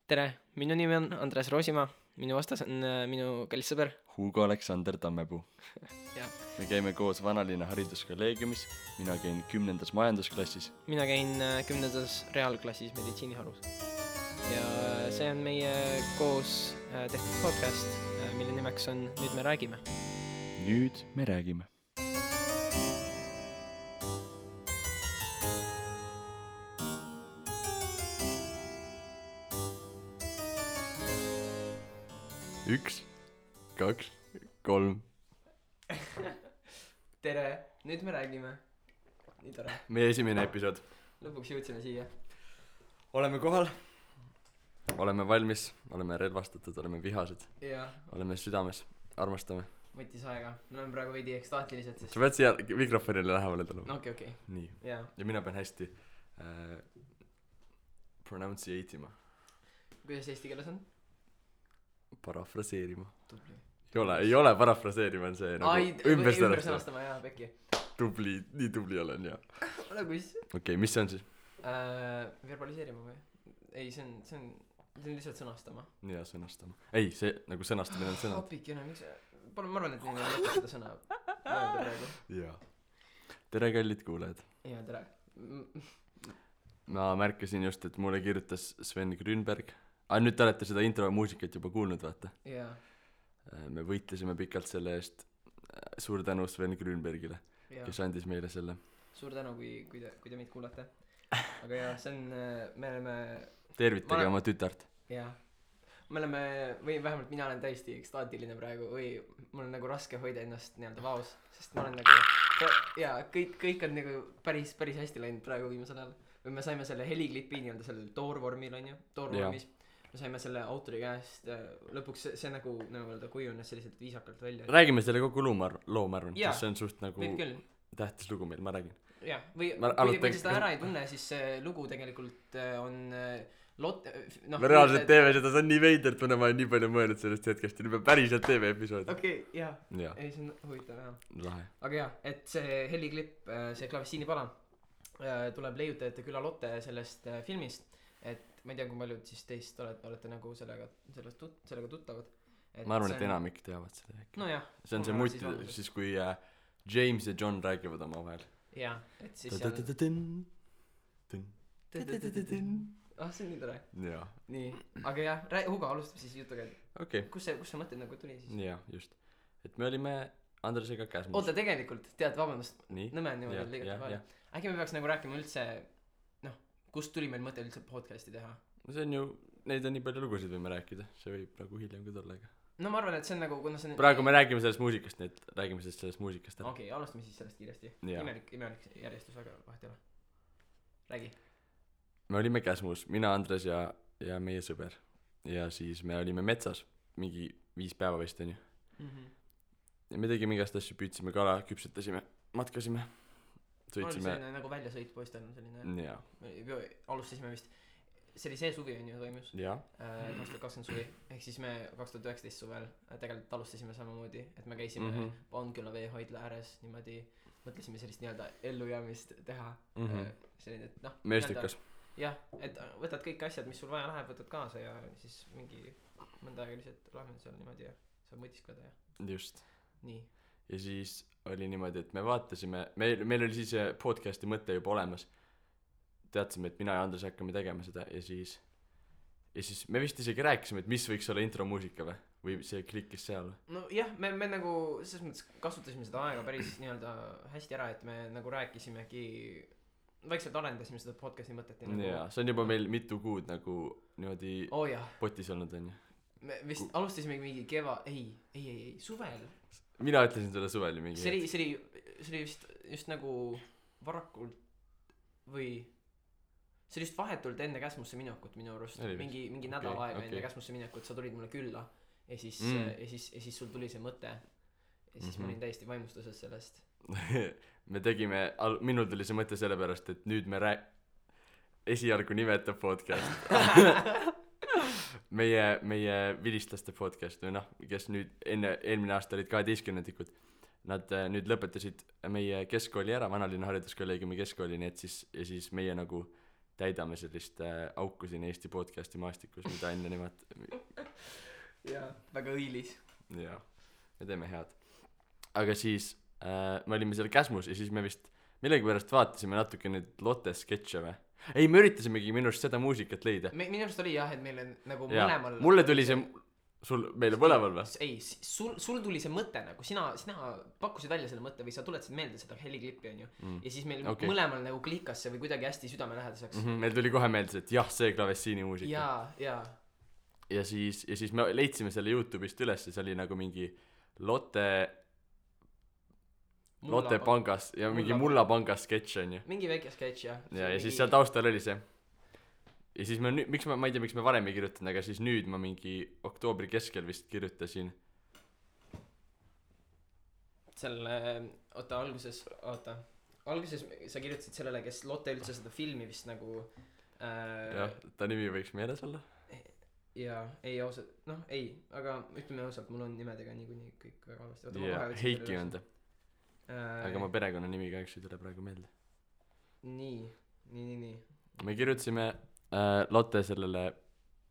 Tere, minu nimi on Andres Roosimaa, minu vastas on minu kallis sõber. Hugo Aleksander Tammepuu. Ja. Me käime koos Vanalinna hariduskolleegiumis, mina käin 10. majandusklassis. Mina käin 10. reaalklassis meditsiiniharus. Ja see on meie koos tehtud podcast, mille nimeks on Nüüd me räägime. Nüüd me räägime. Üks, kaks, kolm. Tere, nüüd me räägime. Nii tore. Meie esimene episood. Lõpuks jõudsime siia. Oleme kohal. Oleme valmis, oleme relvastatud, oleme vihased. Ja. Oleme südames, armastame. Võttis aega. Me oleme praegu veidi ekstaatilised. Sest... Sa pead siia mikrofonile lähemale tulema. Okei. Nii. Ja. Ja mina pean hästi pronunciate'ima. Kuidas eesti keeles on? Parafraseerima. Tubli. Ei ole parafraseerima, on see nagu ümber sõnastama, jaa, pekki. Tubli, nii tubli olen, jah. Ole kus? Okei, mis see on siis? Verbaliseerima või? Ei, see on lihtsalt sõnastama. Jaa, sõnastama. Ei, see nagu sõnastamine on sõnad. Hopikene, miks ma arvan, et neil ei mõtle seda sõna öelda praegu. Jaa. Tere, kallid kuulajad. Jaa, tere. Ma märkasin just, et mulle kirjutas Sven Grünberg. Nüüd te olete seda intro muusikat juba kuulnud, vaata. Jaa. Me võitlesime pikalt selle eest. Suur tänu Sven Grünbergile, kes andis meile selle. Suur tänu, kui te meid kuulate. Aga jaa, see on, me oleme... Tervitage oma tütart. Jaa. Me oleme, või vähemalt mina olen täiesti ekstaatiline praegu, või mul on nagu raske hoida ennast nii-öelda vaos, sest ma olen nagu, jaa, kõik on nagu päris hästi läinud praegu viimasel ajal. Või me saime selle heliklipi nii-öelda sellel toorvormil, on ju, toorvormis. Me saime selle autori käest, lõpuks see nagu öelda kujunes selliselt viisakalt välja. Räägime selle kogu loo, ma arvan, sest see on suht nagu tähtis lugu meil, ma räägin. Jah, või kui seda ära ei tunne, siis see lugu tegelikult on me reaalselt teeme seda, see on nii veidert, ma olen nii palju mõelnud sellest hetkest ja nüüd päriselt teeme episoodi. Okei, jah. Ei, see on huvitav, jah. Lahe. Aga jah, et see heliklipp, see Klavessiinipala tuleb leiutajate küla Lotte sellest filmist, et ma ei tea, kui paljud siis teist olete nagu sellega tuttavad. Ma arvan, et enamik teavad seda äkki. No jah. See on see mutt, siis kui James ja John räägivad oma vahel. Jah, et siis seal... see on nii tore. Jaa. Nii, aga jah, Hugo alustab siis jutuga, et kus see mõte nagu tuli siis? Jaa, just. Et me olime Andresega käsmus. Oota, tegelikult, tead, vabandust, nõme on niimoodi liigat palju. Äkki me peaks nagu rääkima üldse, kust tuli meil mõte üldse podcasti teha? See on ju, neid on nii palju lugusid võime rääkida, see võib nagu hiljem ka tulla, aga... No ma arvan, et see on nagu, kuna see on... Praegu me räägime sellest muusikast, nii et räägime sellest muusikast ära. Okei, alustame siis sellest kiiresti. Imelik järjestus, aga vahet ei ole. Räägi. Me olime käsmus, mina, Andres ja meie sõber. Ja siis me olime metsas, mingi 5 päeva vist, on ju. Ja me tegime igast asju, püüdsime kala, küpsetasime, matkasime. Sõitsime... See nagu väljasõit poistel on selline... Jaa. Alustasime vist... See oli see suvi on ju toimus. Jaa. 2020 suvi. Ehk siis me 2019 suvel tegelikult alustasime samamoodi, et me käisime Paunküla veehoidla ääres niimoodi, mõtlesime sellist nii-öelda ellujäämist teha. Selline, et meestikas. Jah, et võtad kõik asjad, mis sul vaja läheb, võtad kaasa ja siis mingi mõnda aega lihtsalt oleme seal niimoodi ja saab mõtiskleda ja... Just. Nii. Ja siis oli niimoodi, et me vaatasime, meil oli siis podcasti mõte juba olemas. Teadsime, et mina ja Andres hakkame tegema seda ja siis me vist isegi rääkisime, et mis võiks olla intromuusika või see klikkis seal. No jah, me nagu selles mõttes kasutasime seda aega päris nii-öelda hästi ära, et me nagu rääkisimegi, vaikselt arendasime seda podcasti mõtet. Jaa, see on juba meil mitu kuud nagu niimoodi potis olnud, on ju. Me vist alustasimegi mingi ei, suvel. Mina ütlesin selle suvel mingi. See oli just nagu varakult või see oli just vahetult enne käsmusse minekut minu arust. Mingi nädal aega enne käsmusse minekut sa tulid mulle külla ja siis sul tuli see mõte ja siis ma olin täiesti vaimustuses sellest. Me tegime, minul tuli see mõte selle pärast, et nüüd me esialgu nimetab podcast. meie vilistlaste podcast või kes nüüd eelmine aasta olid 12-ndikud. Nad nüüd lõpetasid meie keskkooli ära, Vanalinna hariduskolleegiumi keskkooli, nii et siis meie nagu täidame sellist auku siin Eesti podcasti maastikus, mida enne jaa, väga õilis. jaa, me teeme head. Aga siis me olime seal Käsmus ja siis me vist millegipärast vaatasime natuke neid Lotte sketše või? Ei, me üritasimegi minu arust seda muusikat leida. Minu arust oli jah, et meil on nagu ja. mõlemal mulle tuli see meile mõlemal või? ei, sul tuli see mõte nagu, sina pakkusid välja selle mõtte või sa tuletasid meelde seda heliklippi onju ja siis meil mõlemal nagu klikkas see või kuidagi hästi südamelähedaseks. Meil tuli kohe meelde, et jah, see klavessiini muusika. ja siis me leidsime selle YouTube'ist üles ja see oli nagu mingi Lotte pangas ja mingi Mulla pangas sketš onju. mingi väike sketš jah. ja siis seal taustal oli see ja siis ma ei tea miks me varem ei kirjutanud, aga siis nüüd ma mingi oktoobri keskel vist kirjutasin selle alguses sa kirjutasid sellele, kes Lotte üldse seda filmi vist nagu jah, ta nimi võiks meeles olla jaa, ei ausalt, ei, aga ütleme ausalt, mul on nimedega niikuinii kõik väga halvasti. Heiki on ta aga ma perekonnanimi kahjuks ei tule praegu meelde. Nii me kirjutasime Lotte sellele,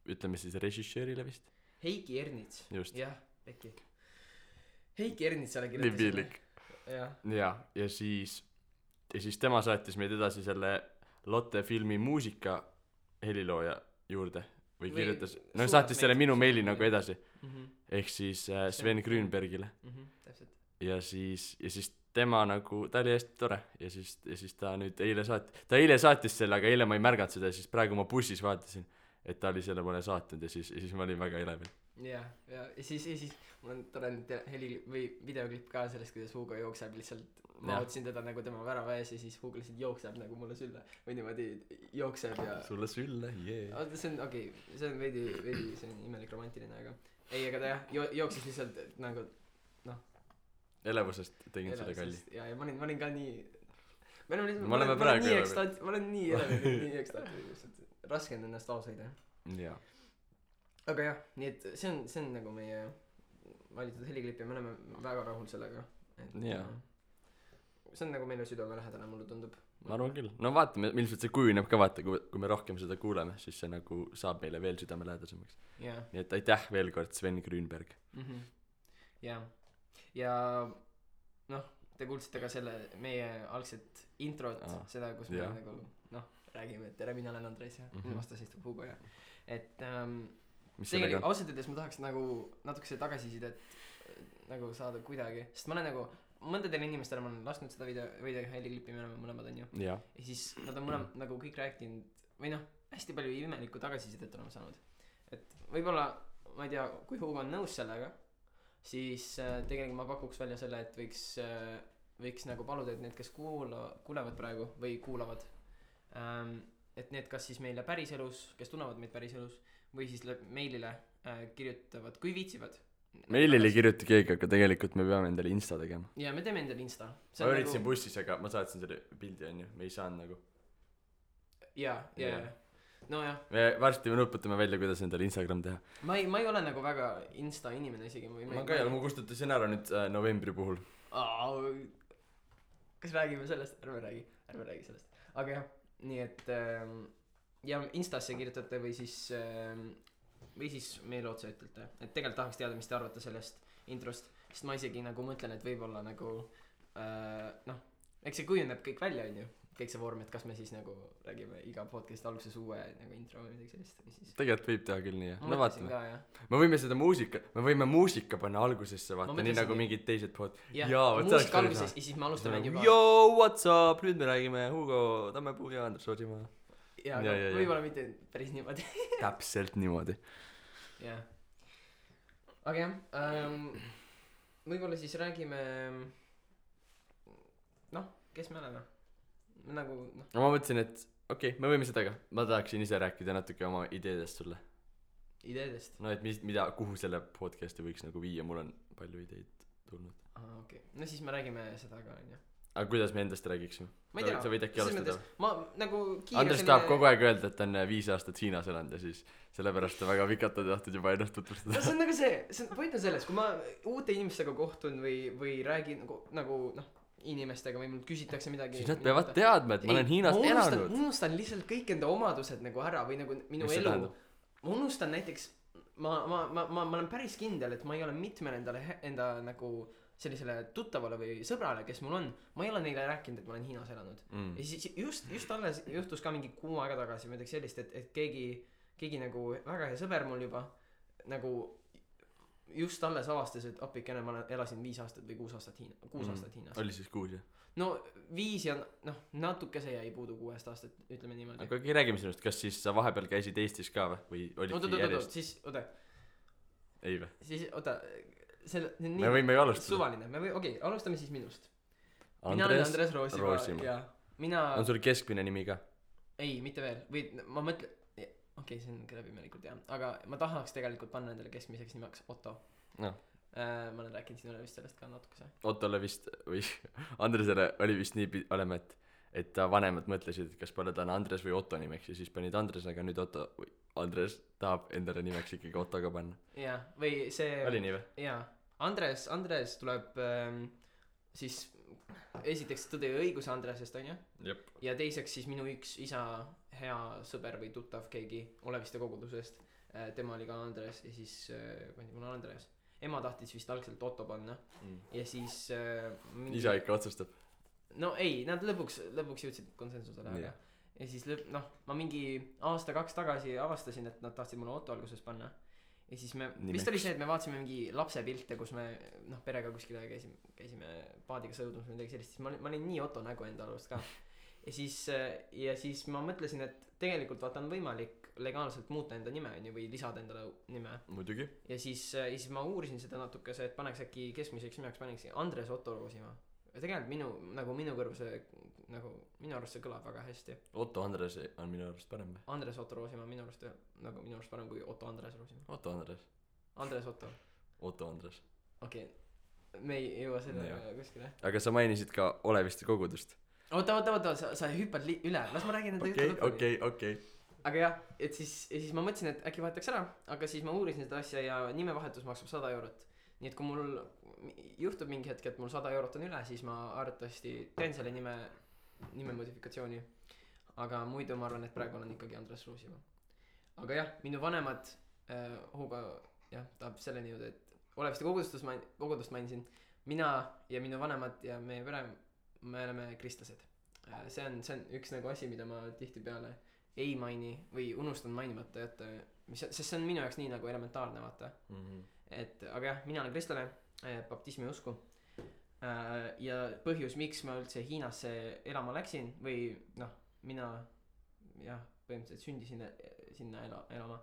ütleme siis režissöörile vist Heiki Ernits. Just. Pekki Heiki Ernitsale kirjutasime ja siis tema saatis meid edasi selle Lotte filmi muusika helilooja juurde või kirjutas saatis selle minu meili nagu edasi ehk siis Sven Grünbergile täpselt. ja siis tema nagu, ta oli hästi tore ja siis ta nüüd eile saatis selle, aga eile ma ei märganud seda ja siis praegu ma bussis vaatasin, et ta oli selle mulle saatnud ja siis ma olin väga elevil. ja siis mul on tore videoklipp ka sellest, kuidas Hugo jookseb lihtsalt, ma otsin teda nagu tema värava ees ja siis Hugo lihtsalt jookseb nagu mulle sülle või niimoodi jookseb ja sulle sülle, see on see on veidi see on imelik romantiline, aga ei, aga ta jah jooksis lihtsalt nagu elevusest tegin selle kalli. ja ma olin ka nii ma olen nii elevil, nii ekstaatiline, raske on ennast vaos hoida. jaa. aga jah, nii et see on nagu meie valitud heliklipp ja me oleme väga rahul sellega. jaa. see on nagu meile südamelähedane, mulle tundub. ma arvan küll. No vaatame, ilmselt see kujuneb ka, vaata, kui me rohkem seda kuuleme, siis see nagu saab meile veel südamelähedasemaks. nii et aitäh veel kord, Sven Grünberg. jaa. ja te kuulsite ka selle meie algset introt, seda, kus me nagu räägime, et tere, mina olen Andres ja vastas istub Hugo ja et tegelikult ausalt öeldes ma tahaks nagu natukese tagasisidet nagu saada kuidagi, sest ma olen nagu mõndadele inimestele ma olen lasknud seda video heliklippi, me oleme mõlemad onju ja siis nad on mõlemad nagu kõik rääkinud või hästi palju imelikku tagasisidet oleme saanud, et võib-olla ma ei tea, kui Hugo on nõus sellega, siis tegelikult ma pakuks välja selle, et võiks nagu paluda, et need, kes kuulevad praegu või kuulavad, et need kas siis meile päriselus, kes tunnevad meid päriselus või siis meilile kirjutavad, kui viitsivad. Meilile ei kirjuta keegi, aga tegelikult me peame endale Insta tegema. ja me teeme endale Insta. Ma üritasin bussis, aga ma saatsin selle pildi onju, me ei saanud nagu ja nojah. Me varsti nuputame välja, kuidas endale Instagram teha. Ma ei ole nagu väga Insta inimene isegi. Ma ka ei ole, ma kustutasin ära nüüd novembri puhul. Kas räägime sellest? Ärme räägi sellest. Aga jah, nii et ja Instasse kirjutate või siis meile otsa ütlete, et tegelikult tahaks teada, mis te arvate sellest introst, sest ma isegi nagu mõtlen, et võib-olla nagu eks see kujuneb kõik välja onju, kõik see vorm, et kas me siis nagu räägime iga podcast alguses uue nagu intro või midagi sellist või siis tegelikult võib teha küll nii jah, no vaatame me võime seda muusika panna algusesse vaata, nii nagu mingid teised muusika alguses ja siis me alustame juba yo what's up, nüüd me räägime Hugo Tammepuu ja Andres Oosimaa ja võib-olla mitte päris niimoodi täpselt niimoodi jah aga jah võib-olla siis räägime kes me oleme nagu ma mõtlesin, et okei, me võime seda ka, ma tahaksin ise rääkida natuke oma ideedest sulle. Ideedest? No et kuhu selle podcasti võiks nagu viia, mul on palju ideid tulnud. okei, no siis me räägime seda ka onju. aga kuidas me endast räägiksime? ma ei tea, sa võid äkki alustada? ma nagu Andres tahab kogu aeg öelda, et ta on 5 aastat Hiinas elanud ja siis sellepärast ta väga pikalt on tahtnud juba ennast tutvustada. see on nagu point on selles, kui ma uute inimestega kohtun või räägin nagu inimestega või mult küsitakse midagi siis nad peavad teadma et ma olen Hiinas elanud ma unustan lihtsalt kõik enda omadused nagu ära või nagu minu mis elu ma unustan näiteks ma olen päris kindel et ma ei ole mitmele enda nagu sellisele tuttavale või sõbrale kes mul on ma ei ole neile rääkinud et ma olen Hiinas elanud ja siis just alles juhtus ka mingi kuu aega tagasi midagi sellist et keegi nagu väga hea sõber mul juba nagu just alles avastas et appikene ma elasin 5 aastat või 6 aastat Hiinas oli siis 6 jah no 5 ja noh natukese jäi puudu 6 aastat ütleme niimoodi aga räägime sinust kas siis sa vahepeal käisid Eestis ka või olidki järjest siis oota ei või siis oota me võime ju alustada suvaline okei alustame siis minust mina olen Andres Roosimaa mina on sul keskmine nimi ka ei mitte veel või ma mõtlen okei see on läbimelikult jah aga ma tahaks tegelikult panna endale keskmiseks nimeks Otto no. ma olen rääkinud sinule vist sellest ka natukese Ottole vist või Andresele oli vist nii olema et ta vanemad mõtlesid et kas panna ta Andres või Otto nimeks ja siis panid Andres aga nüüd Otto või Andres tahab endale nimeks ikkagi Otto ka panna jaa või see oli nii või jaa Andres tuleb siis esiteks Tõde ja õiguse Andresest onju ja teiseks siis minu üks isa hea sõber või tuttav keegi Oleviste kogudusest tema oli ka Andres ja siis pandi mulle Andres ema tahtis vist algselt Otto panna ja siis isa ikka otsustab no ei nad lõpuks jõudsid konsensusele aga ja siis ma mingi aasta-2 tagasi avastasin et nad tahtsid mulle Otto alguses panna ja siis me vist oli see et me vaatasime mingi lapsepilte kus me perega kuskile käisime paadiga sõudmas või midagi sellist siis ma olin nii Otto nägu enda arust ka ja siis ma mõtlesin et tegelikult vaata on võimalik legaalselt muuta enda nime onju või lisada endale nime muidugi ja siis ma uurisin seda natukese et paneks äkki keskmiseks nimeks paneks Andres Otto Roosimaa ja tegelikult minu kõrvu see nagu minu arust see kõlab väga hästi Otto Andres on minu arust parem või Andres Otto Roosimaa minu arust parem kui Otto Andres Roosimaa Otto Andres Andres Otto Andres okei me ei jõua selle kuskile aga sa mainisid ka Oleviste kogudust oota sa hüppad üle las ma räägin enda juttu okei aga jah et siis ma mõtlesin et äkki vahetaks ära aga siis ma uurisin seda asja ja nimevahetus maksab 100 eurot nii et kui mul juhtub mingi hetk et mul 100 eurot on üle siis ma arvatavasti teen selle nime modifikatsiooni aga muidu ma arvan et praegu olen ikkagi Andres Roosimaa aga jah minu vanemad Hugo jah tahab selleni jõuda et Oleviste kogudust mainisin mina ja minu vanemad ja meie pere me oleme kristlased see on üks nagu asi mida ma tihtipeale ei maini või unustan mainimata jätta sest see on minu jaoks nii nagu elementaarne vaata et aga jah mina olen kristlane baptismi usku ja põhjus miks ma üldse Hiinasse elama läksin või mina jah põhimõtteliselt sündisin sinna elama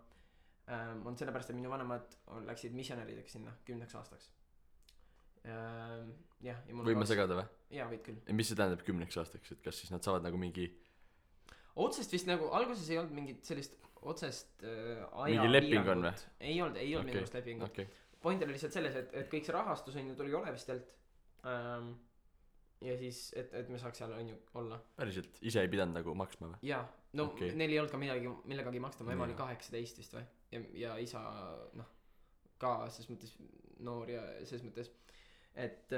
on sellepärast et minu vanemad läksid missionärideks sinna 10 aastaks jah ja mul võin ma segada või? jaa võid küll ja mis see tähendab 10 aastaks et kas siis nad saavad nagu mingi otsest vist nagu alguses ei olnud mingit sellist otsest mingi leping on või? ei olnud minu arust lepingut point oli lihtsalt selles et kõik see rahastus on ju tuli Olevistelt ja siis et me saaks seal on ju olla päriselt ise ei pidanud nagu maksma või? jaa neil ei olnud ka millegagi maksta mu ema oli 18 vist või ja isa ka selles mõttes noor ja selles mõttes et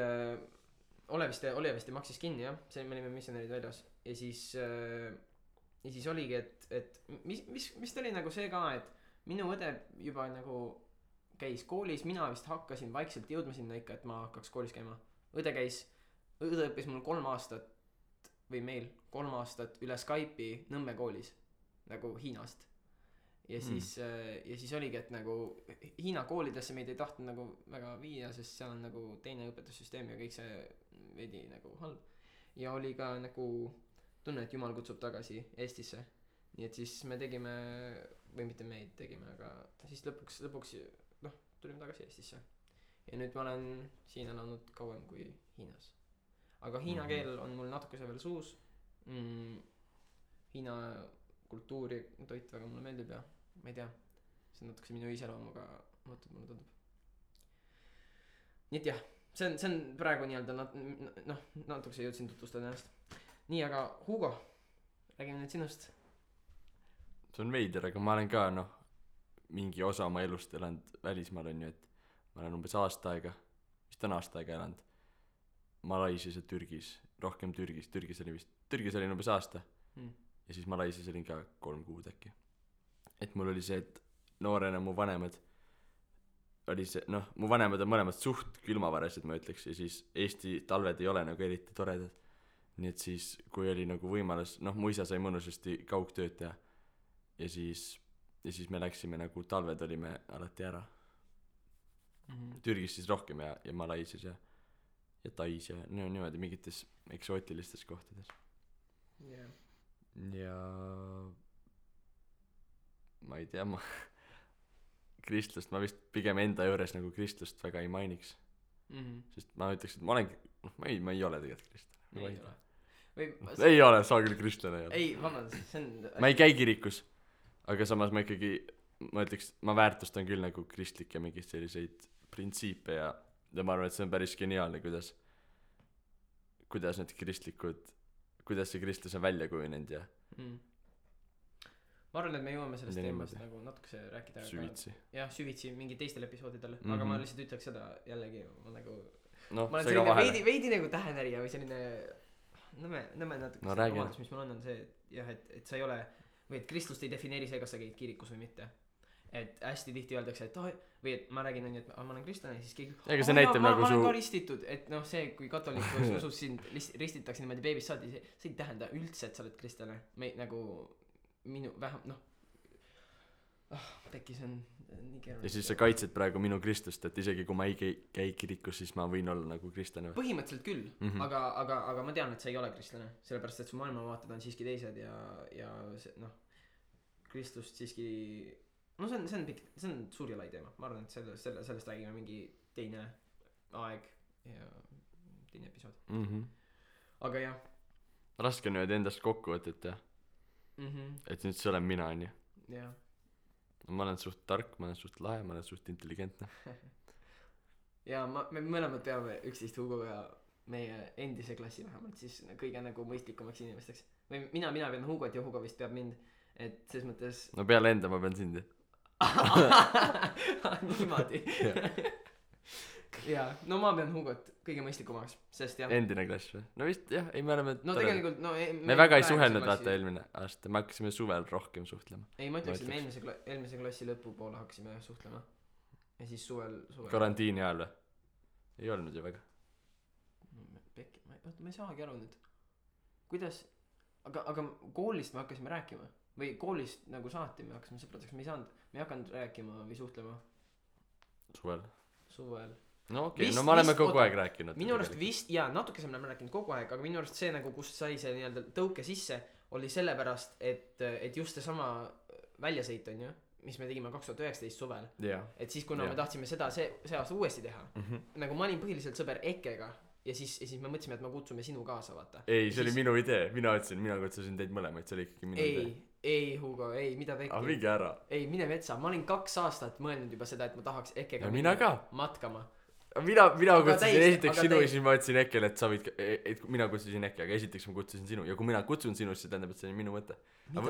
Oleviste maksis kinni jah see me olime missionärid väljas ja siis oligi et mis oli nagu see ka et minu õde juba nagu käis koolis mina vist hakkasin vaikselt jõudma sinna ikka et ma hakkaks koolis käima õde õppis mul 3 aastat või meil 3 aastat üle Skype'i Nõmme koolis nagu Hiinast ja siis oligi et nagu Hiina koolidesse meid ei tahtnud nagu väga viia sest seal on nagu teine õpetussüsteem ja kõik see veidi nagu halb ja oli ka nagu tunne et Jumal kutsub tagasi Eestisse nii et siis me tegime või mitte meid tegime aga siis lõpuks tulime tagasi Eestisse ja nüüd ma olen siin elanud kauem kui Hiinas aga hiina keel on mul natukese veel suus Hiina kultuuri toit väga mulle meeldib ja ma ei tea see on natukese minu iseloomuga mulle tundub nii et jah see on praegu nii-öelda natukese jõudsin tutvustada ennast nii aga Hugo räägime nüüd sinust see on veider aga ma olen ka mingi osa oma elust elanud välismaal on ju et ma olen umbes aasta aega vist on aasta aega elanud Malaisias ja Türgis, rohkem Türgis olin umbes aasta ja siis Malaisias olin ka 3 kuud äkki. Et mul oli see, et noorena mu vanemad oli see, noh, mu vanemad on mõlemad suht külmavarased, ma ütleks, ja siis Eesti talved ei ole nagu eriti toredad. Nii et siis, kui oli nagu võimalus, noh, mu isa sai mõnusasti kaugtööd teha ja siis me läksime nagu, talved olime alati ära. Türgis siis rohkem ja Malaisias ja Tais ja no, niimoodi mingites eksootilistes kohtades. Ja ma ei tea, kristlust ma vist pigem enda juures nagu kristlust väga ei mainiks. Sest ma ütleks, et ma olen, ma ei ole tegelikult kristlane. Ei ole, saa küll kristlane. Ei, vabandust, see on... Ma ei käi kirikus, aga samas ma ikkagi, ma ütleks, ma väärtustan küll nagu kristlikke mingid selliseid printsiipe ja ma arvan, et see on päris geniaalne, kuidas need kristlikud, kuidas see kristlus on välja kujunenud ja ma arvan, et me jõuame sellest teemast nagu natukese rääkida süvitsi. Jah, süvitsi mingi teistel episoodidel, aga ma lihtsalt ütleks seda jällegi, ma olen selline veidi nagu tähenärija või selline nõme natuke omadus, mis mul on see, et jah, et sa ei ole või et kristlust ei defineeri see, kas sa käid kirikus või mitte. Et hästi tihti öeldakse, et või et ma räägin on, et ma olen kristlane ja siis keegi ma olen ka ristitud, et noh, see kui katolikus usus sind ristitakse niimoodi beebist saadi, see ei tähenda üldse, et sa oled kristlane nagu minu vähem tekkis on nii keeruline. Ja siis sa kaitsed praegu minu kristlust, et isegi kui ma ei käi kirikus, siis ma võin olla nagu kristlane. Põhimõtteliselt küll, aga ma tean, et sa ei ole kristlane, sellepärast et su maailmavaated on siiski teised ja see, noh, kristlust siiski no see on suur ja lai teema, ma arvan, et sellest räägime mingi teine aeg ja teine episood. Aga jah, raske on nüüd endast kokku võtta, et nüüd see olen mina, on ju. Jah. Ma olen suht tark, ma olen suht lahe, ma olen suht intelligentne. Ja me mõlemad peame üksteist Hugoga meie endise klassi vähemalt siis kõige nagu mõistlikumaks inimesteks. Või mina pean Hugot ja Hugo vist peab mind, et ses mõttes no peale enda ma pean sind. Niimoodi. Jaa, no ma pean Hugot kõige mõistlikumaks, sest jah. Endine klass või? No vist jah, ei me oleme no tegelikult me väga ei suhelnud vaata eelmine aasta, me hakkasime suvel rohkem suhtlema. Ei, ma ütleks, et me eelmise klassi lõpupoole hakkasime suhtlema ja siis suvel karantiini ajal või? Ei olnud ju väga. Ma ei saagi aru nüüd kuidas, aga koolist me hakkasime rääkima või koolist nagu saati me hakkasime sõpradeks, me ei hakanud rääkima või suhtlema suvel. No okei, no me oleme kogu aeg rääkinud. Minu arust vist, jaa, natukese me oleme rääkinud kogu aeg, aga minu arust see nagu, kust sai see nii-öelda tõuke sisse, oli sellepärast, et just see sama väljasõit on ju, mis me tegime 2019 suvel. Et siis kuna me tahtsime seda see aasta uuesti teha, nagu ma olin põhiliselt sõber Ekkega ja siis me mõtlesime, et me kutsume sinu kaasa, vaata. Ei, see oli minu idee, mina kutsusin teid mõlemaid, see oli ikkagi minu idee. Ei, Hugo, ei, mida pekki. Mingi ära. Ei, mine vetsa, ma olin 2 aastat mõelnud juba seda, et ma tahaks Ekkega matkama. Mina kutsusin esiteks sinu ja siis ma ütlesin Ekkele, et sa võid, et mina kutsusin Ekki, aga esiteks ma kutsusin sinu ja kui mina kutsun sinust, see tähendab, et see on minu mõte.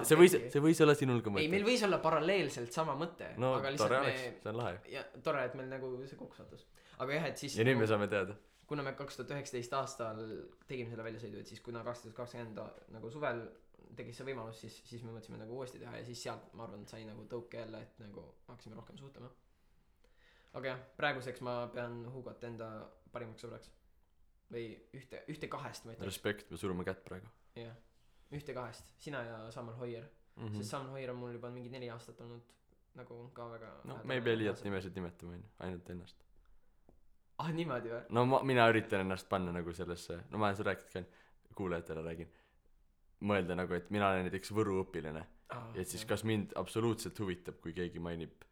See võis olla sinul ka mõte. Ei, meil võis olla paralleelselt sama mõte. No tore oleks, see on lahe. Ja tore, et meil nagu see kokku sattus. Aga jah, et siis ja nüüd me saame teada. Kuna me 2019 aastal tegime selle väljasõidu, et siis kuna 2020 nagu suvel tegis see võimalus, siis me mõtlesime nagu uuesti teha ja siis sealt ma arvan, et sai nagu tõuke jälle, et nagu hakkasime rohkem suhtlema. Aga jah, praeguseks ma pean Hugot enda parimaks sõbraks. Või ühte kahest ma ütleks. Respekt, me surume kätt praegu. Jah, ühte kahest. Sina ja Samuel Hoier. Sest Samuel Hoier on mul juba mingi 4 aastat olnud nagu ka väga no me ei pea liialt nimesid nimetama, ainult ennast. Niimoodi või? No mina üritan ennast panna nagu sellesse, no ma olen seda rääkinud ka, kuulajatele räägin, mõelda nagu, et mina olen näiteks Võru õpilane ja et siis kas mind absoluutselt huvitab, kui keegi mainib,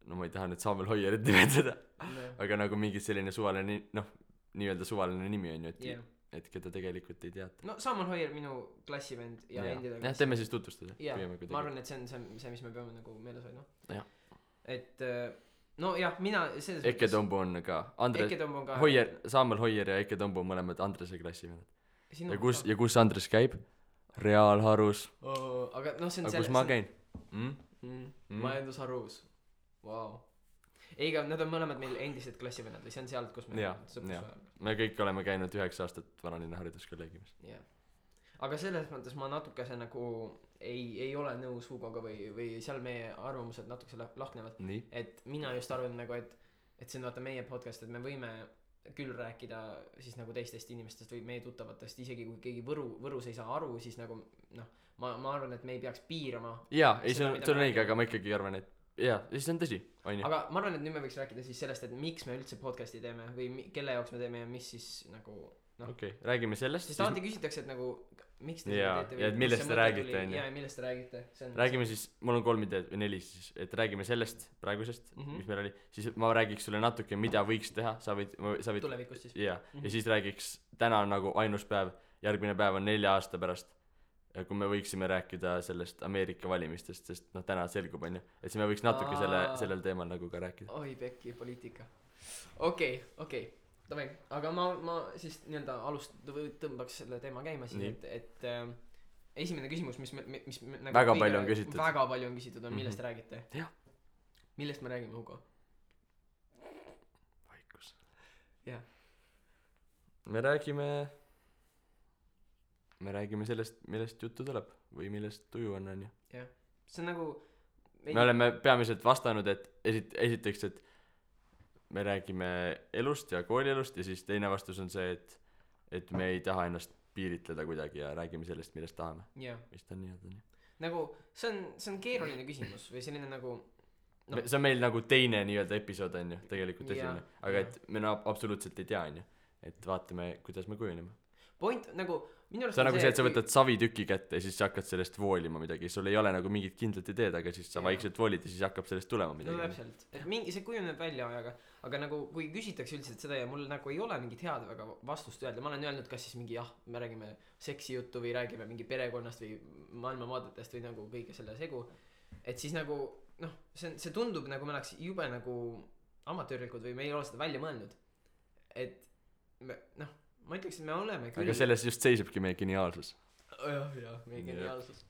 no ma ei taha nüüd Samuel Hoierit nimetada, aga nagu mingi selline suvaline, noh, nii-öelda suvaline nimi on ju, et keda tegelikult ei teata. No Samuel Hoier, minu klassivend ja endine jah, teeme siis tutvustada. Jah, ma arvan, et see on see, mis me peame nagu meeles hoidma. Et no jah, mina Eke Tombu on ka Hoier, Samuel Hoier ja Eke Tombu on mõlemad Andrese klassivennad. Ja kus Andres käib? Reaalharus. Aga noh, see on kus ma käin? Majandusharus. Vau. ei, aga nad on mõlemad meil endised klassivennad või see on sealt, kus me Jaa, me kõik oleme käinud 9 aastat Vanalinna hariduskolleegiumis. jah. aga selles mõttes ma natukese nagu ei ole nõus Hugoga või seal meie arvamused natukese lahknevad. Et mina just arvan nagu, et see on vaata meie podcast, et me võime küll rääkida siis nagu teistest inimestest või meie tuttavatest, isegi kui keegi Võrus ei saa aru, siis nagu noh, ma arvan, et me ei peaks piirama. Jaa, ei see on õige, aga ma ikkagi arvan, et jaa, see on tõsi, on ju. Aga ma arvan, et nüüd me võiks rääkida siis sellest, et miks me üldse podcasti teeme või kelle jaoks me teeme ja mis siis nagu noh. Okei, räägime sellest. Sest alati küsitakse, et nagu miks te seda teete ja et millest te räägite, on ju. Jaa, millest te räägite. Räägime siis, mul on 3 ideed või 4 siis, et räägime sellest praegusest, mis meil oli, siis ma räägiks sulle natuke, mida võiks teha, sa võid tulevikust siis. Jaa, ja siis räägiks, täna on nagu ainus päev, järgmine päev on 4 aasta pärast, kui me võiksime rääkida sellest Ameerika valimistest, sest noh, täna selgub, on ju, et siis me võiks natuke sellel teemal nagu ka rääkida. Oi pekki, poliitika. Okei. Davai, aga ma siis nii-öelda tõmbaks selle teema käima siis, et esimene küsimus, mis nagu väga palju on küsitud, on millest räägite? Jah. Millest me räägime, Hugo? Vaikus. Jah. Me räägime sellest, millest juttu tuleb või millest tuju on ju. Jah, see on nagu me oleme peamiselt vastanud, et esiteks, et me räägime elust ja koolielust ja siis teine vastus on see, et me ei taha ennast piiritleda kuidagi ja räägime sellest, millest tahame. Vist on nii. Nagu see on keeruline küsimus või selline nagu no. See on meil nagu teine nii-öelda episood on ju, tegelikult esimene, aga et me absoluutselt ei tea on ju, et vaatame, kuidas me kujuneme. Point nagu minu arust see on nagu see, et sa võtad savitüki kätte ja siis sa hakkad sellest voolima midagi, sul ei ole nagu mingit kindlat ideed, aga siis sa vaikselt voolid ja siis hakkab sellest tulema midagi. No täpselt, et see kujuneb välja ajaga, aga nagu kui küsitakse üldiselt seda ja mul nagu ei ole mingit head väga vastust öelda, ma olen öelnud kas siis mingi me räägime seksijuttu või räägime mingi perekonnast või maailmavaadetest või nagu kõige selle segu, et siis nagu noh, see tundub nagu me oleks jube nagu amatöörlikud või me ei ole seda välja mõelnud, et noh ma ütleks, et me oleme küll. Aga selles just seisabki meie geniaalsus. Jah, meie geniaalsus.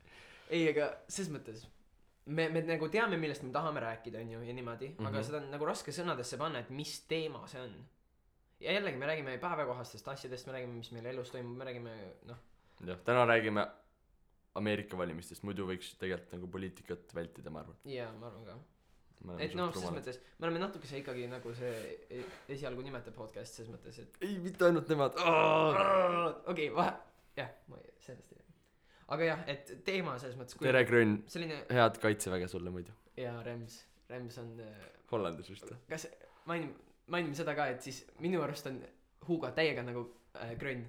Ei, aga ses mõttes me nagu teame, millest me tahame rääkida, on ju, ja niimoodi, aga seda on nagu raske sõnadesse panna, et mis teema see on. Ja jällegi, me räägime päevakohastest asjadest, me räägime, mis meil elus toimub, me räägime, noh. Jah, täna räägime Ameerika valimistest, muidu võiks tegelikult nagu poliitikat vältida, ma arvan. Jaa, ma arvan ka. Et noh, ses mõttes me oleme natukese ikkagi nagu see esialgu nimete podcast ses mõttes, et ei, mitte ainult nemad. Okei, jah, ma sellest ei räägi. Aga jah, et teema selles mõttes tere Grön, head kaitseväge sulle muidu. Jaa, Rems on Hollandis vist. kas mainime seda ka, et siis minu arust on Hugo täiega nagu Grön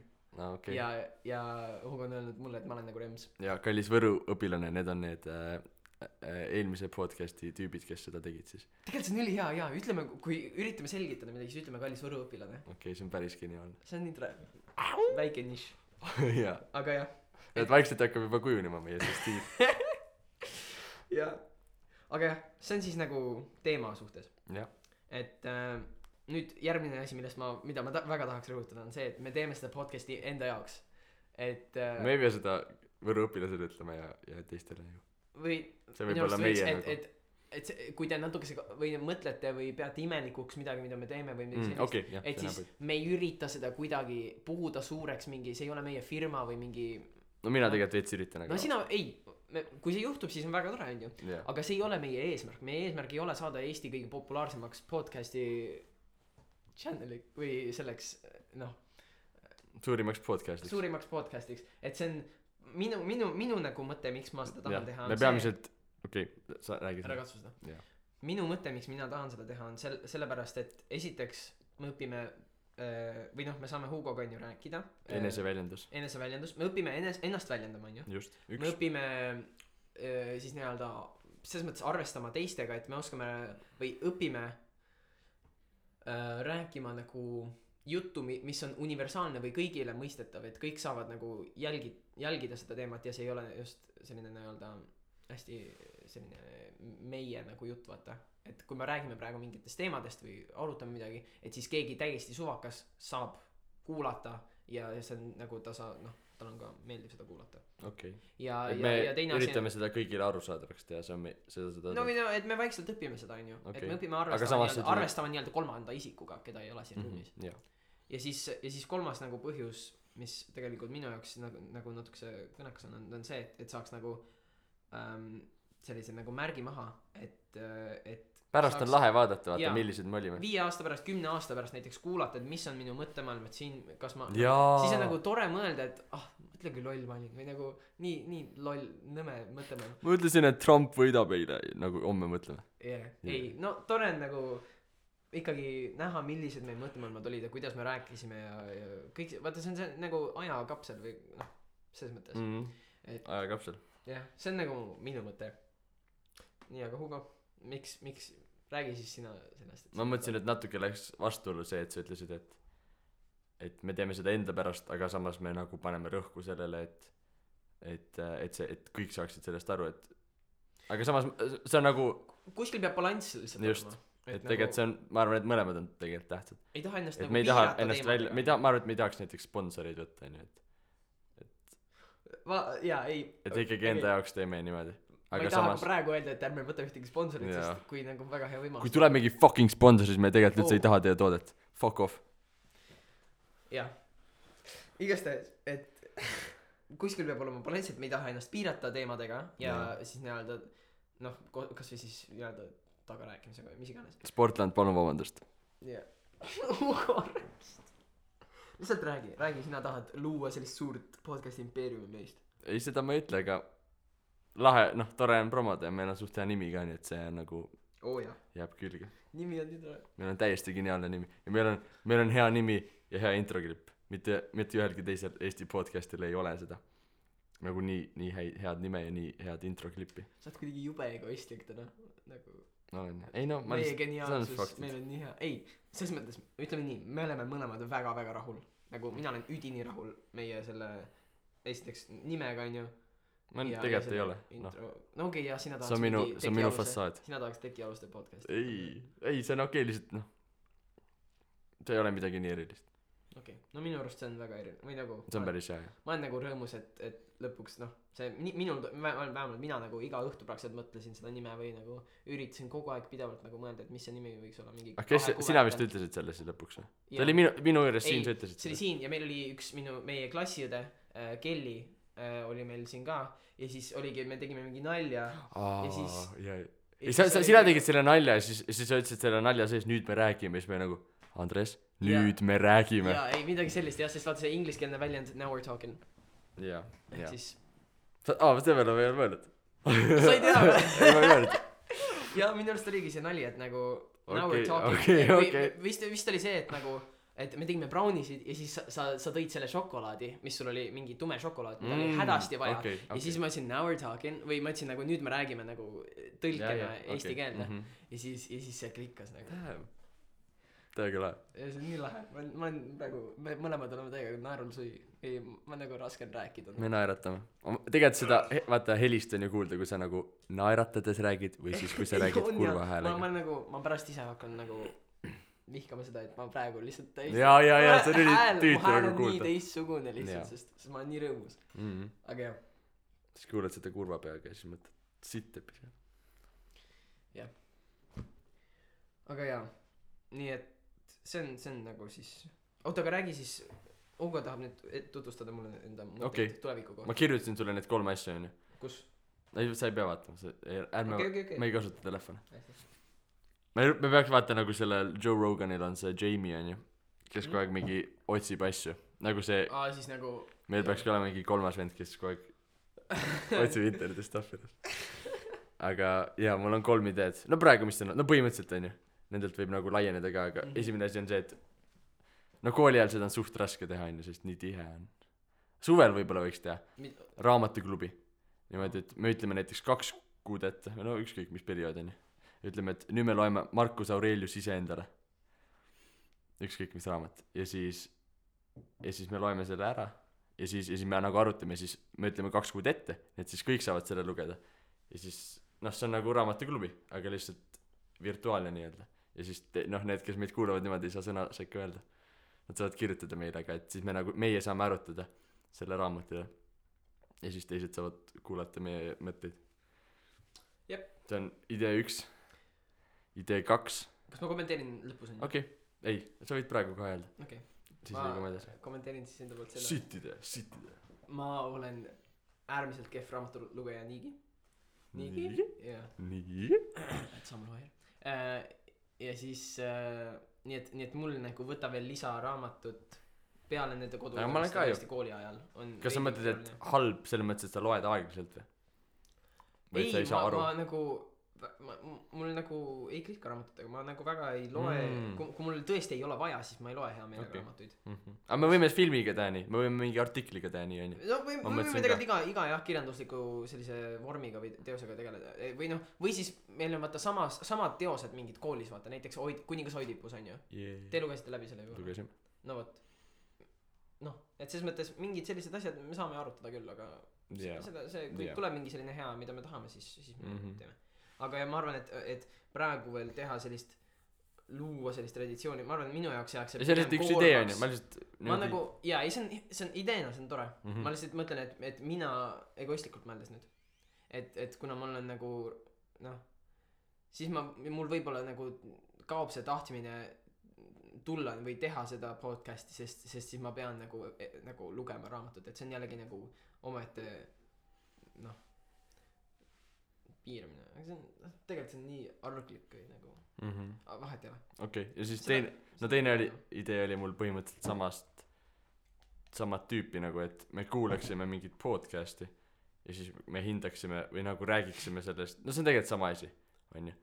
okay. ja Hugo on öelnud mulle, et ma olen nagu Rems. Ja kallis Võru õpilane, need on need eelmise podcasti tüübid, kes seda tegid siis. Tegelikult see on üli hea, ütleme, kui üritame selgitada midagi, siis ütleme kallis Võru õpilane. Okei, see on päris geniaalne. See on nii tore. Väike niš. Jaa. Aga jah. Et vaikselt hakkab juba kujunema meie see stiil. Jaa. Aga jah, see on siis nagu teema suhtes. Jah. Et nüüd järgmine asi, mida ma väga tahaks rõhutada, on see, et me teeme seda podcasti enda jaoks. Et me ei pea seda Võru õpilasele ütlema ja teistele ju. Või see võib olla meie nagu et kui te natukese või mõtlete või peate imelikuks midagi, mida me teeme või midagi sellist, okay, et siis me ei ürita seda kuidagi puhuda suureks mingi, see ei ole meie firma või mingi no mina tegelikult veits üritan no sina, kui see juhtub, siis on väga tore, on ju yeah. Aga see ei ole meie eesmärk ei ole saada Eesti kõige populaarsemaks podcasti channeli või selleks noh suurimaks podcastiks, et see on minu nagu mõte, miks ma seda tahan teha me peamiselt sa räägid ära katsu seda minu mõte, miks mina tahan seda teha on sellepärast, et esiteks me õpime või noh, me saame Hugoga on ju rääkida eneseväljendus, me õpime ennast väljendama, on ju me õpime siis nii-öelda selles mõttes arvestama teistega, et me oskame või õpime rääkima nagu juttu, mis on universaalne või kõigile mõistetav, et kõik saavad nagu jälgida seda teemat ja see ei ole just selline nii-öelda hästi selline meie nagu jutt, vaata, et kui me räägime praegu mingitest teemadest või arutame midagi, et siis keegi täiesti suvakas saab kuulata ja see on nagu tal on ka meeldib seda kuulata okei ja et me teine üritame seda kõigile arusaadavaks teha see on seda no et me vaikselt õpime seda onju Okei. et me õpime Aga samas see tuleb- arvestama nii-öelda kolmanda isikuga keda ei ole siin ruumis jah ja siis kolmas nagu põhjus mis tegelikult minu jaoks nagu natukese kõnekas on see et saaks nagu sellise nagu märgi maha et pärast on lahe vaadata vaata Jaa. millised me olime 5 aasta pärast 10 aasta pärast näiteks kuulata et mis on minu mõttemaailm et siin kas ma Jaa. siis on nagu tore mõelda et mõtle kui loll ma olin või nagu nii loll nõme mõttemaailm ma ütlesin et Trump võidab eile nagu homme mõtleme ei no tore on nagu ikkagi näha millised meil mõttemaailmad olid ja kuidas me rääkisime ja kõik vaata see on nagu ajakapsel või selles mõttes ajakapsel jah see on nagu minu mõte nii aga Hugo miks räägi siis sina sellest ma mõtlesin et natuke läks vastuollu see et sa ütlesid et me teeme seda enda pärast aga samas me nagu paneme rõhku sellele et kõik saaksid sellest aru et aga samas see on nagu kuskil peab balanss lihtsalt just olema et tegelikult see on ma arvan et mõlemad on tegelikult tähtsad ei taha ennast et nagu me ei taha piirata ennast välja me ei taha ma arvan et me ei tahaks näiteks sponsoreid võtta onju jaa ei et ikkagi enda jaoks teeme niimoodi ma aga ei taha samas ka praegu öelda et ärme võta ühtegi sponsorit Jaa. sest kui nagu väga hea võimalus kui tuleb mingi fucking sponsor siis me tegelikult üldse ei taha teie toodet fuck off jah igastahes et kuskil peab olema balanss et me ei taha ennast piirata teemadega ja siis nii-öelda kasvõi siis nii-öelda tagarääkimisega või mis iganes Sportland palun vabandust jah lihtsalt räägi sina tahad luua sellist suurt podcast'i impeeriumi meist ei seda ma ei ütle aga lahe tore on promoda ja meil on suht hea nimi ka nii et see on nagu jah jääb külge nimi on nii tore meil on täiesti geniaalne nimi ja meil on hea nimi ja hea introklipp mitte ühelgi teisel Eesti podcast'il ei ole seda nagu nii head nime ja nii head introklippi sa oled kuidagi jube egoistlik täna nagu olen ei no ma meie lihtsalt geniaalsus meil on nii hea ei selles mõttes ütleme nii me oleme mõlemad väga rahul nagu mina olen üdini rahul meie selle esiteks nimega onju ma tegelikult ei ole no okei ja sina tahaks see on minu fassaad sina tahaks tekialuste podcast'i ei see on okei lihtsalt see ei ole midagi nii erilist okei no minu arust see on väga erinev või nagu see on päris hea ma olen nagu rõõmus et lõpuks see minul vähemalt mina nagu iga õhtu praktiliselt mõtlesin seda nime või nagu üritasin kogu aeg pidevalt nagu mõelda et mis see nimi võiks olla mingi kes sina vist ütlesid selle siis lõpuks või ta oli minu juures siin sa ütlesid see oli siin ja meil oli üks meie klassiõde Kelly oli meil siin ka ja siis oligi me tegime mingi nalja ja siis sina tegid selle nalja ja siis sa ütlesid selle nalja sees nüüd me räägime ja siis me nagu Andres nüüd me räägime jaa ei midagi sellist jah sest vaata see ingliskeelne väljend now we're talking jaa siis see peale ma ei ole mõelnud sa ei tea või ei ma ei mõelnud jaa minu arust oligi see nali et nagu now Okei, we're talking okei. vist oli see et nagu et me tegime brownisid ja siis sa tõid selle šokolaadi mis sul oli mingi tume šokolaad mida oli hädasti vaja ja siis ma ütlesin now we're talking või ma ütlesin nagu nüüd me räägime nagu tõlkena eesti keelde ja siis see klikkas nagu täiega lahe ja see on nii lahe ma olen praegu me mõlemad oleme täiega naerul sui ei ma nagu raske on rääkida me naeratame tegelikult seda vaata helist on ju kuulda kui sa nagu naeratades räägid või siis kui sa räägid kurva häälega ma pärast ise hakkan nagu vihkama seda et ma praegu lihtsalt täiesti jaa see oli tüütu nagu nii kuulda teistsugune lihtsalt sest ma olen nii rõõmus aga jah siis kuulad seda kurva peaga ja siis mõtled sitt epi jah aga jaa nii et see on nagu siis oota aga räägi siis Hugo tahab nüüd tutvustada mulle enda mõtteid tuleviku kohta ma kirjutasin sulle need 3 asja onju kus ei sa ei pea vaatama ärme okay. ma ei kasuta telefoni me peaks vaata nagu sellel Joe Roganil on see Jamie onju kes kogu aeg mingi otsib asju nagu see siis nagu meil peaks ka olema mingi 3. vend kes kogu aeg otsib internetis stuff'idest aga jaa mul on 3 ideed no praegu mis see on no põhimõtteliselt onju nendelt võib nagu laieneda ka aga esimene asi on see et no kooli ajal seda on suht raske teha onju sest nii tihe on suvel võib-olla võiks teha raamatuklubi niimoodi et me ütleme näiteks 2 kuud ette no ükskõik mis periood onju ütleme et nüüd me loeme Marcus Aurelius iseendale ükskõik mis raamat ja siis me loeme selle ära ja siis me nagu arutame ja siis me ütleme 2 kuud ette et siis kõik saavad selle lugeda ja siis see on nagu raamatuklubi aga lihtsalt virtuaalne nii-öelda ja siis need kes meid kuulavad niimoodi ei saa sõna sekka öelda nad saavad kirjutada meile, aga et siis meie saame arutada selle raamatu üle ja siis teised saavad kuulata meie mõtteid. Jep. See on idee 1. Idee 2. Kas ma kommenteerin lõpus? Okei, ei, sa võid praegu kohe öelda. Okay. Siis liigume edasi. Kommenteerin siis enda poolt selle. Sitt idee. Ma olen äärmiselt kehv raamatulugeja niigi. Jah. Nii? Et samal vahel. Ja siis nii et mul nagu võta veel lisaraamatut peale nende kooli ajal on. Kas sa mõtled, et halb selles mõttes, et sa loed aeglaselt või? Ei, ma nagu mul nagu ei klikka raamatutega, ma nagu väga ei loe kui mul tõesti ei ole vaja, siis ma ei loe hea meelega raamatuid. Aga me võime filmiga teha nii, me võime mingi artikliga teha nii, on ju. No võime tegelikult iga jah kirjandusliku sellise vormiga või teosega tegeleda või noh, või siis meil on vaata samad teosed mingid koolis vaata, näiteks Kuningas Oidipus on ju. Te lugesite läbi selle juba? Lugesime. No vot, noh, et selles mõttes mingid sellised asjad me saame arutada küll, aga kui tuleb mingi selline hea, mida me tahame, siis me teeme. Aga ja ma arvan, et praegu veel teha luua sellist traditsiooni, ma arvan, et minu jaoks jääks see on lihtsalt üks idee on ju, ma nagu, jaa, ei see on ideena, see on tore. Ma lihtsalt mõtlen, et mina egoistlikult mõeldes nüüd, et kuna mul on nagu noh, siis mul võib-olla nagu kaob see tahtmine tulla või teha seda podcasti, sest siis ma pean nagu lugema raamatut, et see on jällegi nagu omaette noh piiramine, aga see on tegelikult see on nii arglik nagu vahet ei ole. Okei, ja siis teine idee oli mul põhimõtteliselt samad tüüpi nagu, et me kuulaksime mingit podcasti ja siis me hindaksime või nagu räägiksime sellest, no see on tegelikult sama asi, on ju.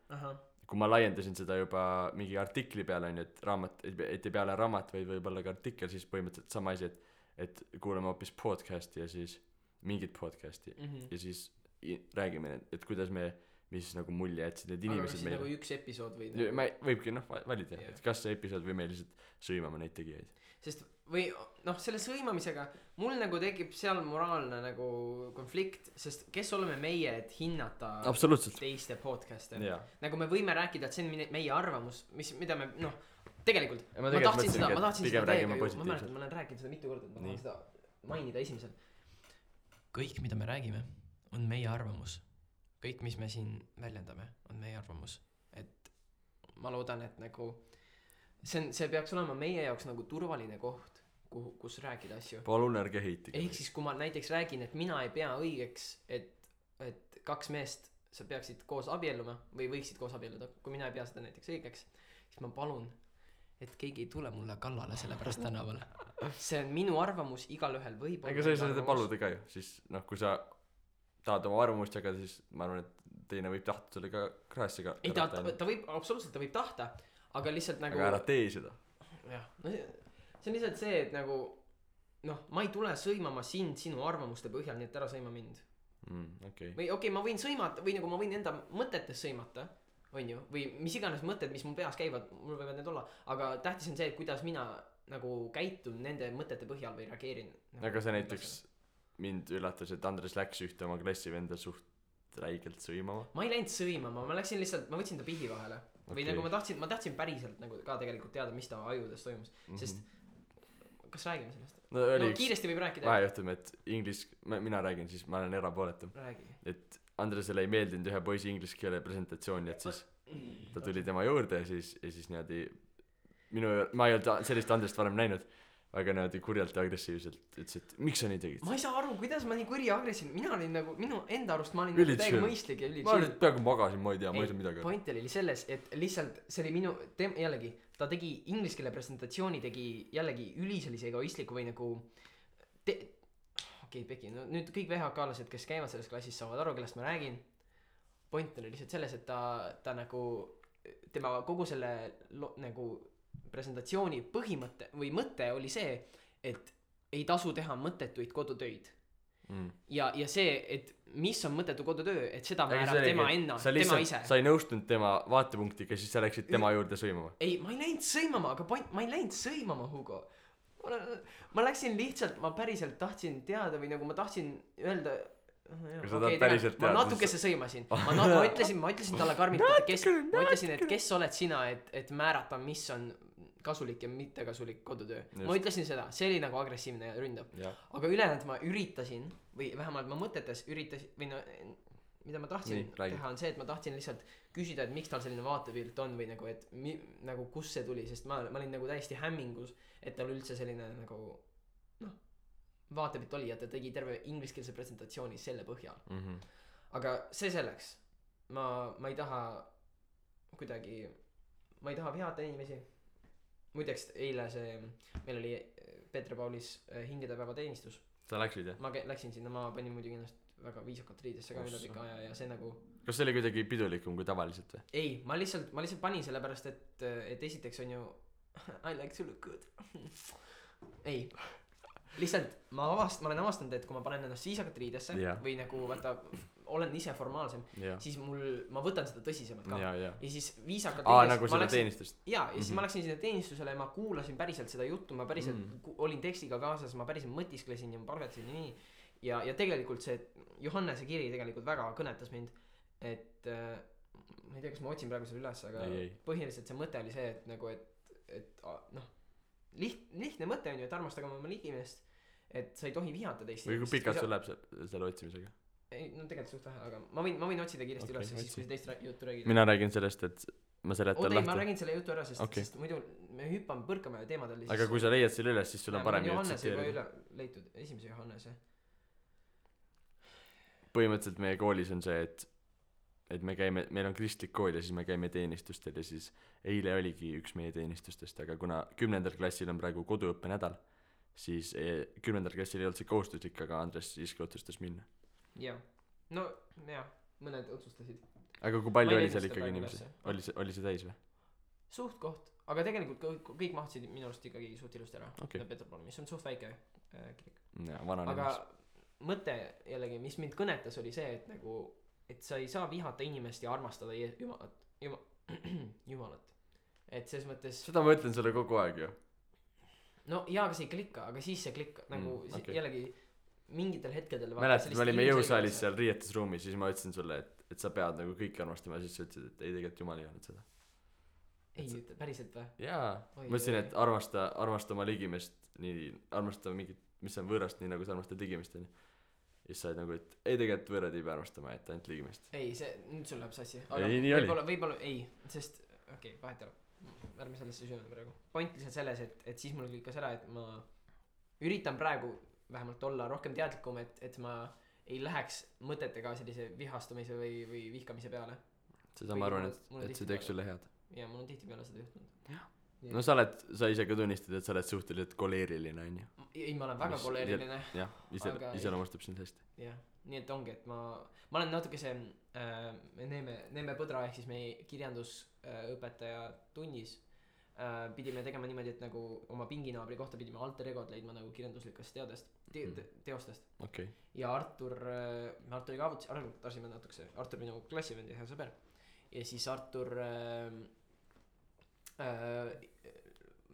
Kui ma laiendasin seda juba mingi artikli peale, on ju, et raamat, et ei peale raamat, vaid võib-olla ka artikkel, siis põhimõtteliselt sama asi, et kuulame hoopis podcasti ja siis mingit podcasti ja siis räägime, et kuidas mis nagu mulje jätsid need inimesed meile. Aga nagu üks episood või võibki valida, et kas see episood või me lihtsalt sõimame neid tegijaid. Sest või noh, selle sõimamisega mul nagu tekib seal moraalne nagu konflikt, sest kes oleme meie, et hinnata teiste podcast'e. Nagu me võime rääkida, et see on meie arvamus, mida me noh, tegelikult ma tahtsin seda teiega ju, ma mäletan, ma olen rääkinud seda mitu korda, ma tahan seda mainida esimesel. Kõik, mida me räägime, on meie arvamus. Kõik, mis me siin väljendame, on meie arvamus. Et ma loodan, et nagu see peaks olema meie jaoks nagu turvaline koht, kus rääkida asju. Palun ärge heiti. Ehk siis, kui ma näiteks räägin, et mina ei pea õigeks, et kaks meest sa peaksid koos abielluma või võiksid koos abielluda, kui mina ei pea seda näiteks õigeks, siis ma palun, et keegi ei tule mulle kallale selle pärast tänavale. See on minu arvamus, igalühel võib olla. Ega sa ei saa seda paluda ka ju, siis noh, kui sa tahad oma arvamust jagada, siis ma arvan, et teine võib tahta selle ka kraessiga. Ei, ta võib, absoluutselt ta võib tahta, aga lihtsalt nagu aga ära tee seda. Jah, no see on lihtsalt see, et nagu noh, ma ei tule sõimama sind sinu arvamuste põhjal, nii et ära sõima mind. Või okei, ma võin sõimata või nagu ma võin enda mõtetes sõimata, on ju, või mis iganes mõtted, mis mu peas käivad, mul võivad need olla, aga tähtis on see, et kuidas mina nagu käitun nende mõtete põhjal või reageerin nagu, aga see näiteks mind üllatas, et Andres läks ühte oma klassivenda suht räigelt sõimama. Ma ei läinud sõimama, ma läksin lihtsalt, ma võtsin ta pihi vahele või nagu ma tahtsin päriselt nagu ka tegelikult teada, mis ta ajudes toimus, sest kas räägime sellest? No kiiresti võib rääkida. Vahejuhtum, et mina räägin, siis ma olen erapooletu. Et Andresele ei meeldinud ühe poisi inglise keele presentatsiooni, et siis ta tuli tema juurde ja siis niimoodi ma ei olnud sellist Andrest varem näinud, aga niimoodi kurjalt ja agressiivselt ütles, et miks sa nii tegid? Ma ei saa aru, kuidas ma nii kuri ja agressiivne, mina olin nagu, minu enda arust ma olin täiega mõistlik ja ma olin peaaegu magasin, ma ei tea, ma ei saa midagi. Point oli selles, et lihtsalt see oli minu, jällegi, ta tegi inglise keele presentatsiooni, tegi jällegi üli sellise egoistliku või nagu okei, Peki, no nüüd kõik VHK-lased, kes käivad selles klassis, saavad aru, kellest ma räägin. Point oli lihtsalt selles, et ta nagu tema kogu selle nagu presentatsiooni põhimõte või mõte oli see, et ei tasu teha mõttetuid kodutöid. Ja see, et mis on mõttetu kodutöö, et seda määrab tema ise. Sa ei nõustunud tema vaatepunktiga, siis sa läksid tema juurde sõimama. Ei, ma ei läinud sõimama, aga ma ei läinud sõimama, Hugo. Ma läksin lihtsalt, ma päriselt tahtsin teada või nagu ma tahtsin öelda ma natukese sõimasin. Ma ütlesin talle karmilt, ma ütlesin, et kes oled sina, et määrata, mis on kasulik ja mittekasulik kodutöö. Just. Ma ütlesin seda, see oli nagu agressiivne ja ründav. Aga ülejäänud ma üritasin või vähemalt ma mõtetes üritasin või no mida ma tahtsin teha on see, et ma tahtsin lihtsalt küsida, et miks tal selline vaatepilt on või nagu, et nagu kus see tuli, sest ma olin nagu täiesti hämmingus, et tal üldse selline nagu noh, vaatepilt oli ja ta tegi terve ingliskeelse presentatsiooni selle põhjal. Aga see selleks, ma ei taha kuidagi, ma ei taha vihata inimesi. Muideks eile meil oli Peeter-Paulis hingedepäeva teenistus. Sa läksid jah? Ma läksin sinna, ma panin muidugi ennast väga viisakalt riidesse ka üle pika aja ja see nagu kas see oli kuidagi pidulikum kui tavaliselt või? Ei, ma lihtsalt panin sellepärast, et esiteks on ju I like to look good ei, lihtsalt ma olen avastanud, et kui ma panen ennast viisakalt riidesse või nagu vaata olen ise formaalsem siis ma võtan seda tõsisemalt ka ja siis viisakalt nagu seda teenistust ja siis ma läksin sinna teenistusele ja ma kuulasin päriselt seda juttu, ma päriselt olin tekstiga kaasas, ma päriselt mõtisklesin ja ma palvetasin nii ja tegelikult see Johannese kiri tegelikult väga kõnetas mind, et ma ei tea, kas ma otsin praegu selle üles, aga põhiliselt see mõte oli see, et nagu, et noh, lihtne mõte on ju, et armastage oma ligimest, et sa ei tohi vihata teist. või kui pikalt sul läheb selle otsimisega? Ei, no tegelikult suht vähe, aga ma võin otsida kiiresti üles, siis kui teist juttu räägid. Mina räägin sellest, et ma seletan lahti. Ma räägin selle jutu ära, sest muidu me põrkame teemadel. Aga kui sa leiad selle üles, siis sul on parem Johannese juba üle leitud, esimese Johannese. Põhimõtteliselt meie koolis on see, et meil on kristlik kool ja siis me käime teenistustel ja siis eile oligi üks meie teenistustest, aga kuna 10. klassil on praegu koduõppe nädal, siis 10. klassil ei olnud see kohustuslik, aga Andres siiski otsustas minna. Jah, no jah, mõned otsustasid. Aga kui palju oli seal ikkagi inimesi? Oli see täis või? Suht koht, aga tegelikult kõik mahtusid minu arust ikkagi suht ilusti ära. Peeterpalu, mis on suht väike kirik. Aga mõte jällegi, mis mind kõnetas, oli see, et nagu et sa ei saa vihata inimest ja armastada Jumalat. Et ses mõttes seda ma ütlen sulle kogu aeg ju. No jaa, aga see ei klikka, aga siis see klikka nagu jällegi mingitel hetkedel mäletad, me olime jõusaalis seal riietusruumis, siis ma ütlesin sulle, et sa pead nagu kõiki armastama ja siis sa ütlesid, et ei tegelikult Jumal ei öelnud seda. Ei, päriselt või? Jaa, ma ütlesin, et armasta oma ligimest nii, armasta mingit, mis on võõrast, nii nagu sa armastad ligimest on. Ja siis sa oled nagu, et ei tegelikult võõrad ei pea armastama, et ainult ligimest. Ei, see, nüüd sul läheb sassi. Ei, nii oli. Võib-olla, ei, sest, vahet ei ole. Ärme sellesse süvene praegu. Point lihtsalt selles, et siis mul klikkas ära, et ma üritan praegu vähemalt olla rohkem teadlikum, et ma ei läheks mõtetega sellise vihastumise või vihkamise peale. Seda ma arvan, et see teeks sulle head. Ja mul on tihti peale seda juhtunud. No sa ise ka tunnistad, et sa oled suhteliselt koleeriline, on ju? Ei, ma olen väga koleeriline. Jah, iseloomustab sind hästi. Jah, nii et ongi, et ma olen natuke see Neeme Põdra ehk siis meie kirjandusõpetaja tunnis pidime tegema niimoodi, et nagu oma pinginaabri kohta pidime alter egod leidma nagu kirjanduslikest teostest. Okay. Ja Arturiga arutasime natukese, Artur minu klassivend ja hea sõber. Ja siis Artur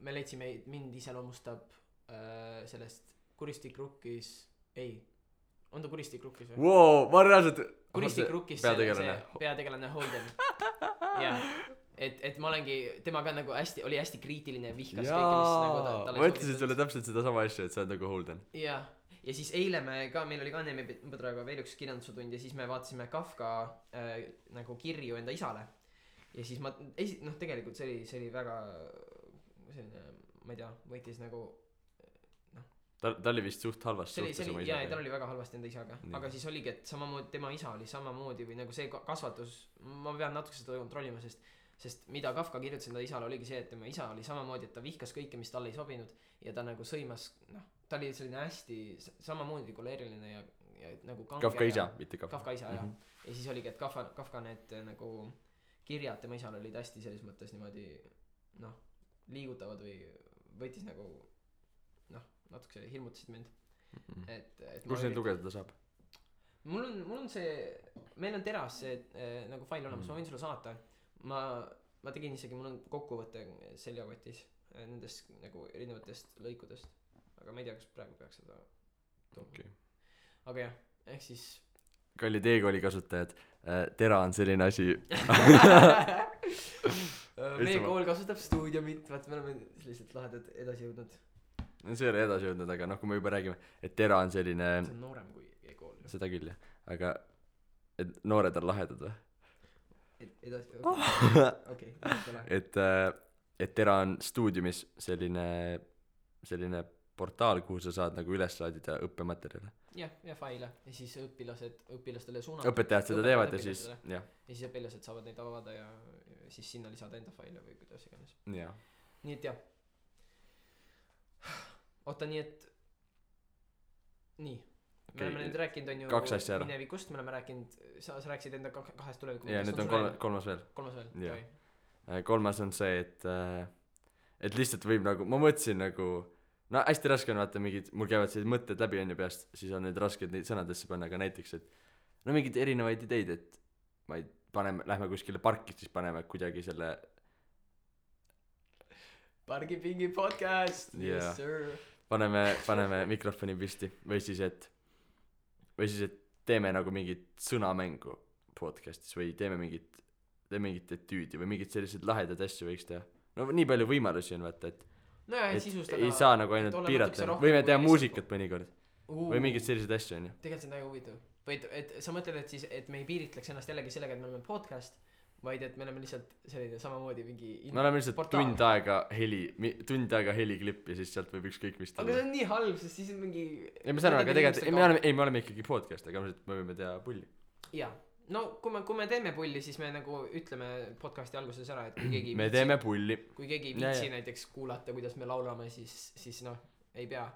me leidsime, mind iseloomustab sellest Kuristik Rukkis on ta Kuristik Rukkis või? Wow, ma reaalselt Kuristik Rukkis peategelane Holden jah, et ma olengi temaga nagu oli hästi kriitiline ja vihkas kõike, mis nagu talle ma ütlesin sulle täpselt seda sama asja, et sa oled nagu Holden ja siis eile meil oli ka Neeme Põdraga veel üks kirjandusutund ja siis me vaatasime Kafka nagu kirju enda isale ja siis tegelikult see oli väga selline, ma ei tea, võitis nagu ta oli vist suht halvast suhtes oma isaga. Jaa, tal oli väga halvasti enda isaga. Nii. Aga siis oligi, et samamoodi tema isa oli samamoodi või nagu see kasvatus, ma pean natuke seda kontrollima, sest mida Kafka kirjutas enda isale oligi see, et tema isa oli samamoodi, et ta vihkas kõike, mis talle ei sobinud ja ta nagu sõimas, ta oli selline hästi samamoodi koleeriline ja nagu kange. Kafka isa, mitte Kafka. Kafka isa, jah. Ja siis oligi, et Kafka need nagu kirjad tema isale olid hästi selles mõttes niimoodi liigutavad või võitis nagu natuke hirmutasid mind kus neid lugeda saab? mul on see meil on teras see nagu fail olemas ma võin sulle saata ma tegin isegi mul on kokkuvõte seljakotis nendest nagu erinevatest lõikudest aga ma ei tea kas praegu peaks seda okay. aga jah ehk siis kallid e-kooli kasutajad tera on selline asi meie kool kasutab stuudiumit, vaata me oleme sellised lahedad edasi jõudnud. no see ei ole edasi jõudnud, aga noh, kui me juba räägime, et Tera on selline see on noorem kui e-kool. seda küll jah, aga et noored on lahedad või? edasi, okei. et Tera on stuudiumis selline portaal, kuhu sa saad nagu üles laadida õppematerjale. ja faile ja siis õpilastele suunata. õpetajad seda teevad ja siis jah. ja siis õpilased saavad neid avada ja siis sinna lisada enda faile või kuidas iganes. jah. nii et jah. oota, nii et nii okay. Me oleme nüüd rääkinud on ju minevikust, me oleme rääkinud, sa rääkisid enda kahest tulevikust. ja nüüd on kolmas veel. kolmas on see, et lihtsalt võib nagu, ma mõtlesin nagu no hästi raske on vaata mingid, mul käivad sellised mõtted läbi on ju peast, siis on need rasked neid sõnadesse panna, aga näiteks, et no mingeid erinevaid ideid, et ma ei, lähme kuskile parki, siis paneme kuidagi selle Pargipingi podcast, yes sir. paneme mikrofoni püsti või siis, et teeme nagu mingit sõnamängu podcastis või teeme mingit etüüdi või mingid sellised lahedad asju võiks teha. No nii palju võimalusi on vaata, et no jah, et sisustada ei saa nagu ainult piirata, võime teha muusikat mõnikord või mingeid selliseid asju on ju. tegelikult see on väga huvitav või et sa mõtled, et siis et me ei piiritleks ennast jällegi sellega, et me oleme podcast, vaid et me oleme lihtsalt selline samamoodi mingi me oleme lihtsalt portaal. tund aega heliklipp ja siis sealt võib ükskõik mis aga see on nii halb, sest siis on mingi ei me saame, aga tegelikult me oleme ikkagi podcast, aga me võime teha pulli jaa. No kui me teeme pulli, siis me nagu ütleme podcasti alguses ära, et kui keegi me teeme pulli. Kui keegi viitsi näiteks kuulata, kuidas me laulame, siis noh, ei pea.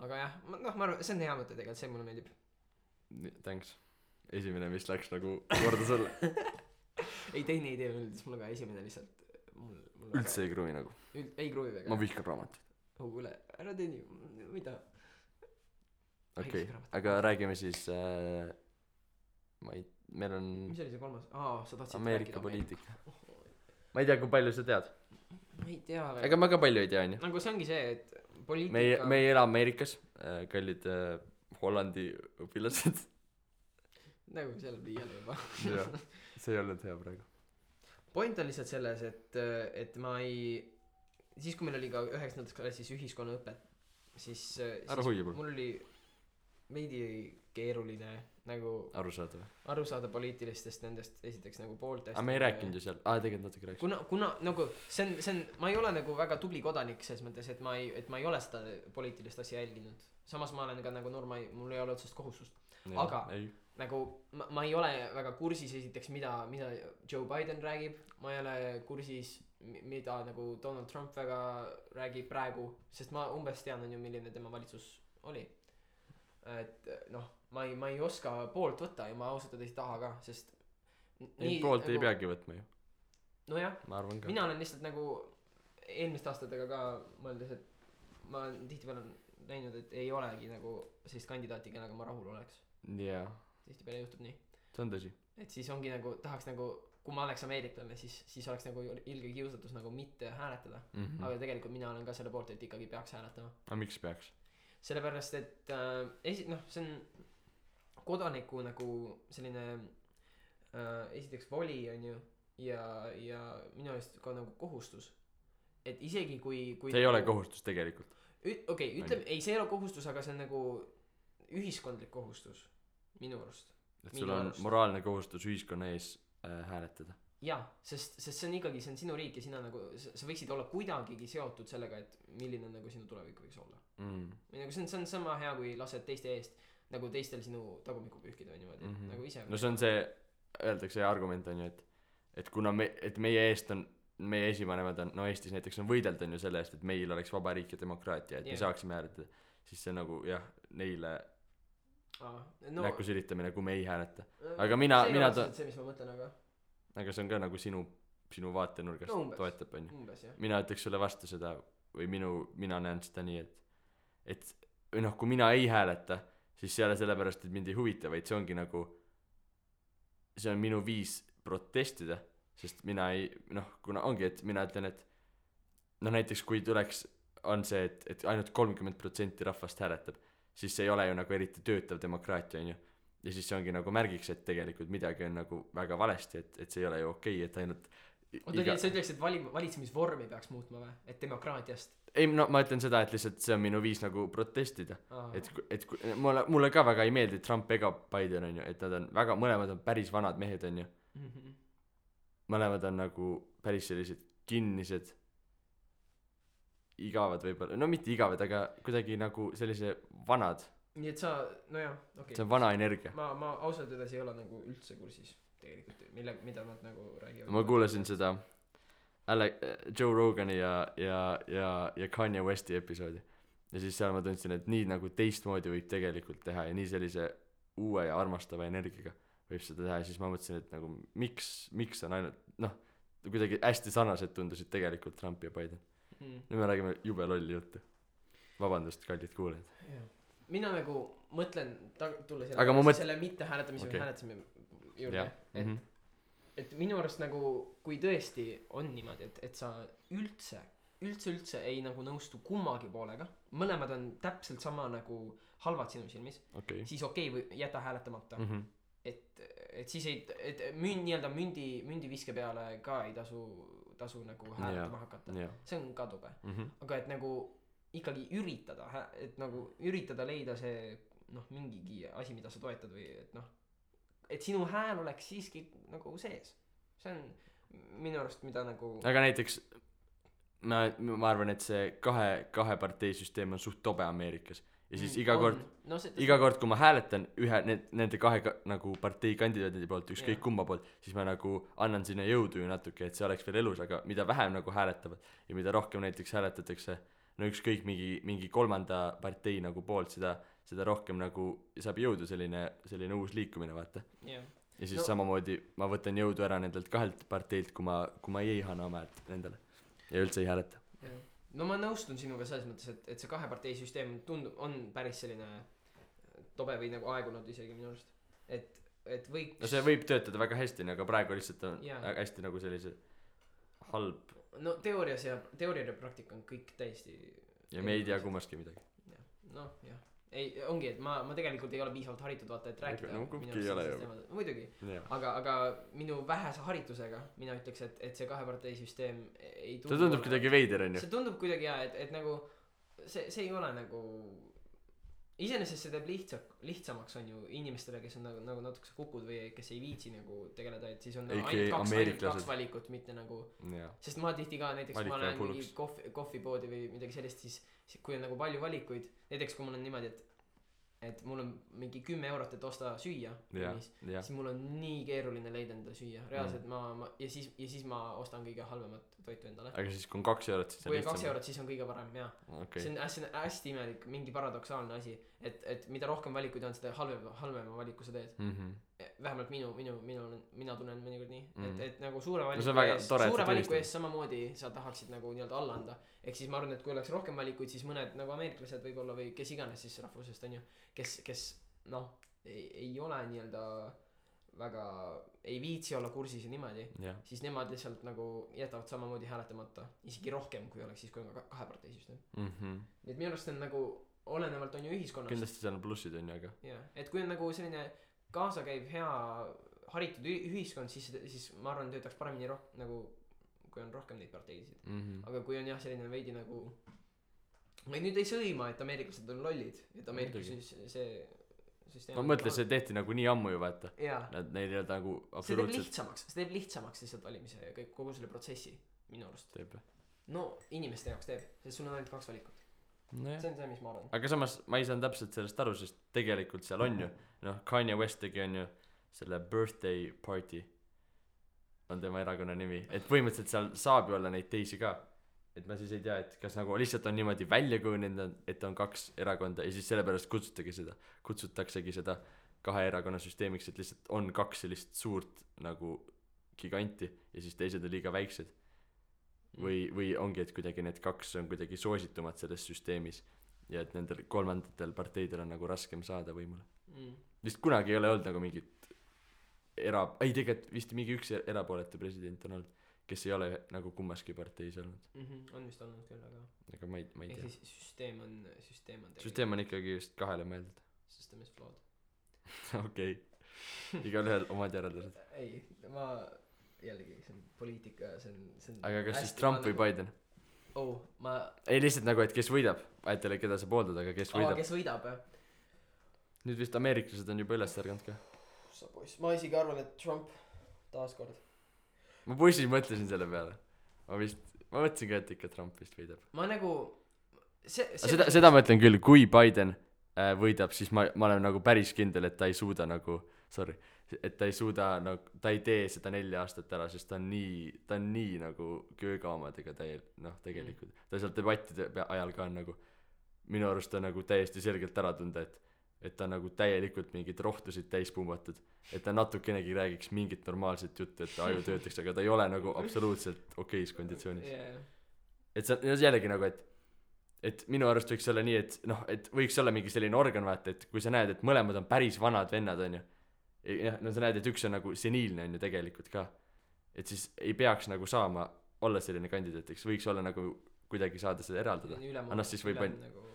Aga jah, noh, ma arvan, see on hea mõte tegelikult, see mulle meeldib. Thanks. Esimene, mis läks nagu korda sulle. ei, teine idee meeldis mulle ka, esimene lihtsalt mul üldse ei kruvi nagu. Ei kruvi väga. Ma vihkan raamatuid. Kuule, ära teeni, mida? Okei, aga räägime siis meil on mis oli see kolmas? sa tahtsid Ameerika poliitika. Ma ei tea, kui palju sa tead. Ma ei tea väga. Ega ma ka palju ei tea, on ju. Nagu see ongi see, et poliitika me ei ela Ameerikas, kallid Hollandi õpilased. Nagu seal liiale juba. jah, see ei olnud hea praegu. Point on lihtsalt selles, et ma ei siis kui meil oli ka 9. klassis ühiskonnaõpet, siis mul oli veidi keeruline nagu aru saada poliitilistest nendest esiteks nagu pooltest. Aga me ei rääkinud ju seal, tegelikult natuke rääkis. Kuna nagu see on, ma ei ole nagu väga tubli kodanik selles mõttes, et ma ei ole seda poliitilist asja jälginud. Samas ma olen ka nagu noor, mul ei ole otsest kohustust. Aga nagu ma ei ole väga kursis esiteks, mida Joe Biden räägib, ma ei ole kursis, mida nagu Donald Trump väga räägib praegu, sest ma umbes tean on ju, milline tema valitsus oli. Et noh, ma ei oska poolt võtta ja ma ausalt ei taha ka, sest nii, poolt nagu, ei peagi võtma ju. Nojah, ka. Mina olen lihtsalt nagu eelmiste aastatega ka mõeldes, et ma tihtipeale näinud, et ei olegi nagu sellist kandidaati, kellega ma rahul oleks. Yeah. Tihtipeale juhtub nii. See on tõsi. Et siis ongi nagu, tahaks nagu, kui ma oleks ameeriklane, siis oleks nagu ilge kiusatus nagu mitte hääletada. Aga tegelikult mina olen ka selle poolt, et ikkagi peaks hääletama. Aga miks peaks? Sellepärast, et see on kodaniku nagu selline esiteks voli on ju ja minu eest ka nagu kohustus, et isegi kui see ei ole kohustus tegelikult. Okei, ütleme, ei see ei ole kohustus, aga see on nagu ühiskondlik kohustus minu arust. Et sul on moraalne kohustus ühiskonna ees hääletada. Jaa, sest see on ikkagi, see on sinu riik ja sina nagu, sa võiksid olla kuidagigi seotud sellega, et milline nagu sinu tulevik võiks olla. Või nagu see on sama hea, kui lased teiste eest nagu teistel sinu tagumikku pühkida või niimoodi, nagu ise. No see on see, öeldakse argument on ju, et kuna et meie eest on, meie esivanemad on, no Eestis näiteks on võideld on ju selle eest, et meil oleks vaba riik ja demokraatia, et me saaksime hääletada, siis see nagu jah, neile näkku silitamine, kui me ei hääleta. Aga mina see ei ole see, mis ma mõtlen, aga see on ka nagu sinu vaatenurgast toetab on ju. Mina ütleks sulle vastu seda või mina näen seda nii, et noh, kui mina ei hääleta, siis see ei ole sellepärast, et mind ei huvita, vaid see ongi nagu, see on minu viis protestida, sest mina ei, noh, kuna ongi, et mina ütlen, et noh, näiteks kui tuleks, on see, et ainult 30% rahvast hääletab, siis see ei ole ju nagu eriti töötav demokraatia, on ju. Ja siis see ongi nagu märgiks, et tegelikult midagi on nagu väga valesti, et see ei ole ju okei, et ainult oota nii et sa ütleks et valitsemisvormi peaks muutma või et demokraatiast ei no ma ütlen seda et lihtsalt see on minu viis nagu protestida Aa. mulle ka väga ei meeldi Trump ega Biden onju et nad on väga mõlemad on päris vanad mehed onju mõlemad on nagu päris sellised kinnised igavad võib-olla no mitte igavad aga kuidagi nagu sellise vanad nii et sa nojah okei see on vana energia ma ausalt öeldes ei ole nagu üldse kursis tegelikult mida nad nagu räägivad ma kuulasin seda Joe Rogani ja Kanye Westi episoodi ja siis seal ma tundsin et nii nagu teistmoodi võib tegelikult teha ja nii sellise uue ja armastava energiaga võib seda teha ja siis ma mõtlesin et nagu miks on ainult noh kuidagi hästi sarnased tundusid tegelikult Trump ja Biden nüüd me räägime jube lolli juttu vabandust kallid kuulajad mina nagu mõtlen tulla selle mitte hääletamise või hääletamise juurde et minu arust nagu kui tõesti on niimoodi et sa üldse ei nagu nõustu kummagi poolega mõlemad on täpselt sama nagu halvad sinu silmis siis või jäta hääletamata et siis et nii-öelda mündiviske peale ka ei tasu nagu hääletama hakata see on ka tobe aga et nagu ikkagi üritada leida see noh mingigi asi mida sa toetad või et noh et sinu hääl oleks siiski nagu sees see on minu arust mida nagu aga näiteks ma arvan et see kahe partei süsteem on suht tobe Ameerikas ja siis iga kord kui ma hääletan nende kahe nagu partei kandidaadi poolt ükskõik kumma poolt siis ma nagu annan sinna jõudu ju natuke et see oleks veel elus aga mida vähem nagu hääletavad ja mida rohkem näiteks hääletatakse no ükskõik mingi kolmanda partei nagu poolt seda rohkem nagu saab jõudu selline uus liikumine vaata ja siis samamoodi ma võtan jõudu ära nendelt kahelt parteilt kui ma ei anna oma häält nendele ja üldse ei hääleta no ma nõustun sinuga selles mõttes et see kahe partei süsteem on päris selline tobe või nagu aegunud isegi minu arust et võiks no see võib töötada väga hästi aga praegu lihtsalt on hästi nagu sellise halb no teooria ja praktika on kõik täiesti ja me ei tea kummaski midagi noh jah ei ongi et ma tegelikult ei ole piisavalt haritud vaata et rääkida no kumbki ei ole ju muidugi aga minu vähese haritusega mina ütleks et see kahe partei süsteem ei see tundub kuidagi veider onju see tundub kuidagi et nagu see ei ole nagu iseenesest see teeb lihtsamaks on ju inimestele kes on nagu natukese kukud või kes ei viitsi nagu tegeleda et siis on ainult kaks valikut mitte nagu sest ma tihti ka näiteks ma lähen mingi kohvipoodi või midagi sellist siis kui on nagu palju valikuid näiteks kui mul on niimoodi et mul on mingi 10 eurot et osta süüa siis mul on nii keeruline leida endale süüa reaalselt ma ja siis ma ostan kõige halvemat toitu endale aga siis kui on 2 eurot siis kui on 2 eurot siis on kõige parem see on hästi imelik mingi paradoksaalne asi et mida rohkem valikuid on seda halvema valiku sa teed vähemalt mina tunnen mõnikord nii et nagu suure valiku ees samamoodi sa tahaksid nagu nii-öelda alla anda ehk siis ma arvan et kui oleks rohkem valikuid siis mõned nagu ameeriklased võib-olla või kes iganes siis rahvusest on ju kes noh ei ole nii-öelda väga ei viitsi olla kursis ja niimoodi siis nemad lihtsalt nagu jätavad samamoodi hääletamata isegi rohkem kui oleks siis kui on kahe partei süsteem nii et minu arust on nagu olenevalt on ju ühiskonnast kindlasti seal on plussid on ju aga et kui on nagu selline kaasakäiv hea haritud ühiskond siis ma arvan töötaks paremini nagu kui on rohkem neid parteisid aga kui on jah selline veidi nagu ma nüüd ei sõima et ameeriklased on lollid et ameerikas see ma mõtlen see tehti nagu nii ammu ju vaata nad neil ei olnud nagu absoluutselt see teeb lihtsamaks lihtsalt valimise ja kogu selle protsessi minu arust teeb no inimeste jaoks teeb sest sul on ainult 2 valikut see on see mis ma arvan aga samas ma ei saanud täpselt sellest aru sest tegelikult seal on ju noh Kanye West tegi on ju selle birthday party on tema erakonna nimi et põhimõtteliselt seal saab ju olla neid teisi ka et ma siis ei tea et kas nagu lihtsalt on niimoodi välja kujunenud et on 2 erakonda ja siis sellepärast kutsutaksegi seda kahe erakonna süsteemiks et lihtsalt on 2 sellist suurt nagu giganti ja siis teised on liiga väiksed või ongi et kuidagi need 2 on kuidagi soositumad selles süsteemis ja et nendel kolmandatel parteidel on nagu raskem saada võimule vist kunagi ei ole olnud nagu mingit tegelikult vist mingi üks erapooletu president on olnud kes ei ole nagu kummaski parteis olnud on vist olnud küll aga ma ei tea siis süsteem on ikkagi just kahele mõeldud system is flawed okei igalühel omad järeldused ei ma jällegi see on poliitika, see on aga kas siis Trump või Biden? ma ei lihtsalt nagu et kes võidab, vahetele keda sa pooldad, aga kes võidab. kes võidab jah? nüüd vist ameeriklased on juba üles ärganud ka. sa poiss, ma isegi arvan, et Trump taaskord. ma bussis mõtlesin selle peale, ma mõtlesin ka, et ikka Trump vist võidab. ma nagu seda ma ütlen küll, kui Biden võidab, siis ma olen nagu päris kindel, et ta ei suuda nagu et ta ei suuda nagu ta ei tee seda 4 aastat ära, sest ta on nii nagu kööga omadega tegelikult ta seal debattide ajal ka on nagu minu arust ta nagu täiesti selgelt ära tunda, et ta nagu täielikult mingeid rohtusid täis pumbatud, et ta natukenegi räägiks mingit normaalset juttu, et ta aju töötaks, aga ta ei ole nagu absoluutselt okeis konditsioonis. et see on jällegi nagu, et minu arust võiks olla nii, et noh, et võiks olla mingi selline organ, vaata, et kui sa näed, et mõlemad on päris vanad vennad, onju, no sa näed, et üks on nagu seniilne, onju, tegelikult ka, et siis ei peaks nagu saama olla selline kandidaat, eks võiks olla nagu kuidagi saada seda eraldada, annast siis võib nagu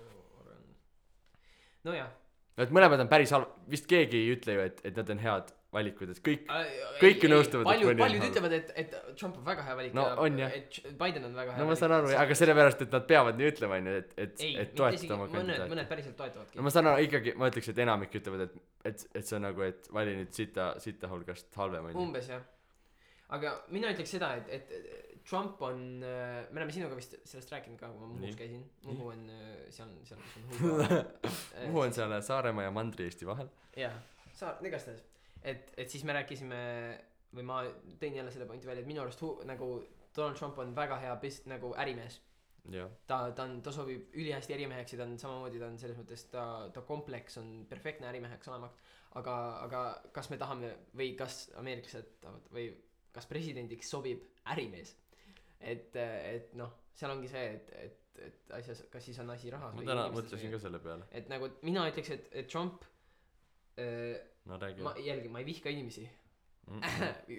nojah, et mõlemad on päris vist keegi ei ütle ju, et nad on head valikud, et kõik nõustuvad, paljud ütlevad, et Trump on väga hea valik no, ja et Biden on väga hea no ma saan aru, aga sellepärast, et nad peavad nii ütlema, et toetada oma kandidaati. mõned päriselt toetavadki. no ma saan aru, ikkagi ma ütleks, et enamik ütlevad, et see on nagu, et vali nüüd sita hulgast halvem on. Umbes jah, aga mina ütleks seda, et Trump on, me oleme sinuga vist sellest rääkinud ka, kui ma Muhus käisin. Muhu on seal kus on Muhu. Muhu on seal Saaremaa ja Mandri-Eesti vahel. jaa, igastahes. Et siis me rääkisime või ma tõin jälle selle pointi välja, et minu arust nagu Donald Trump on väga hea nagu ärimees. Ta sobib ülihästi ärimeheks ja ta on samamoodi, ta on selles mõttes ta kompleks on perfektne ärimeheks olemaks, aga kas me tahame või kas ameeriklased tahavad või kas presidendiks sobib ärimees, et noh, seal ongi see, et asjas, kas siis on asi rahas ma täna mõtlesin ka selle peale, et nagu mina ütleks, et Trump no räägi. ma ei vihka inimesi.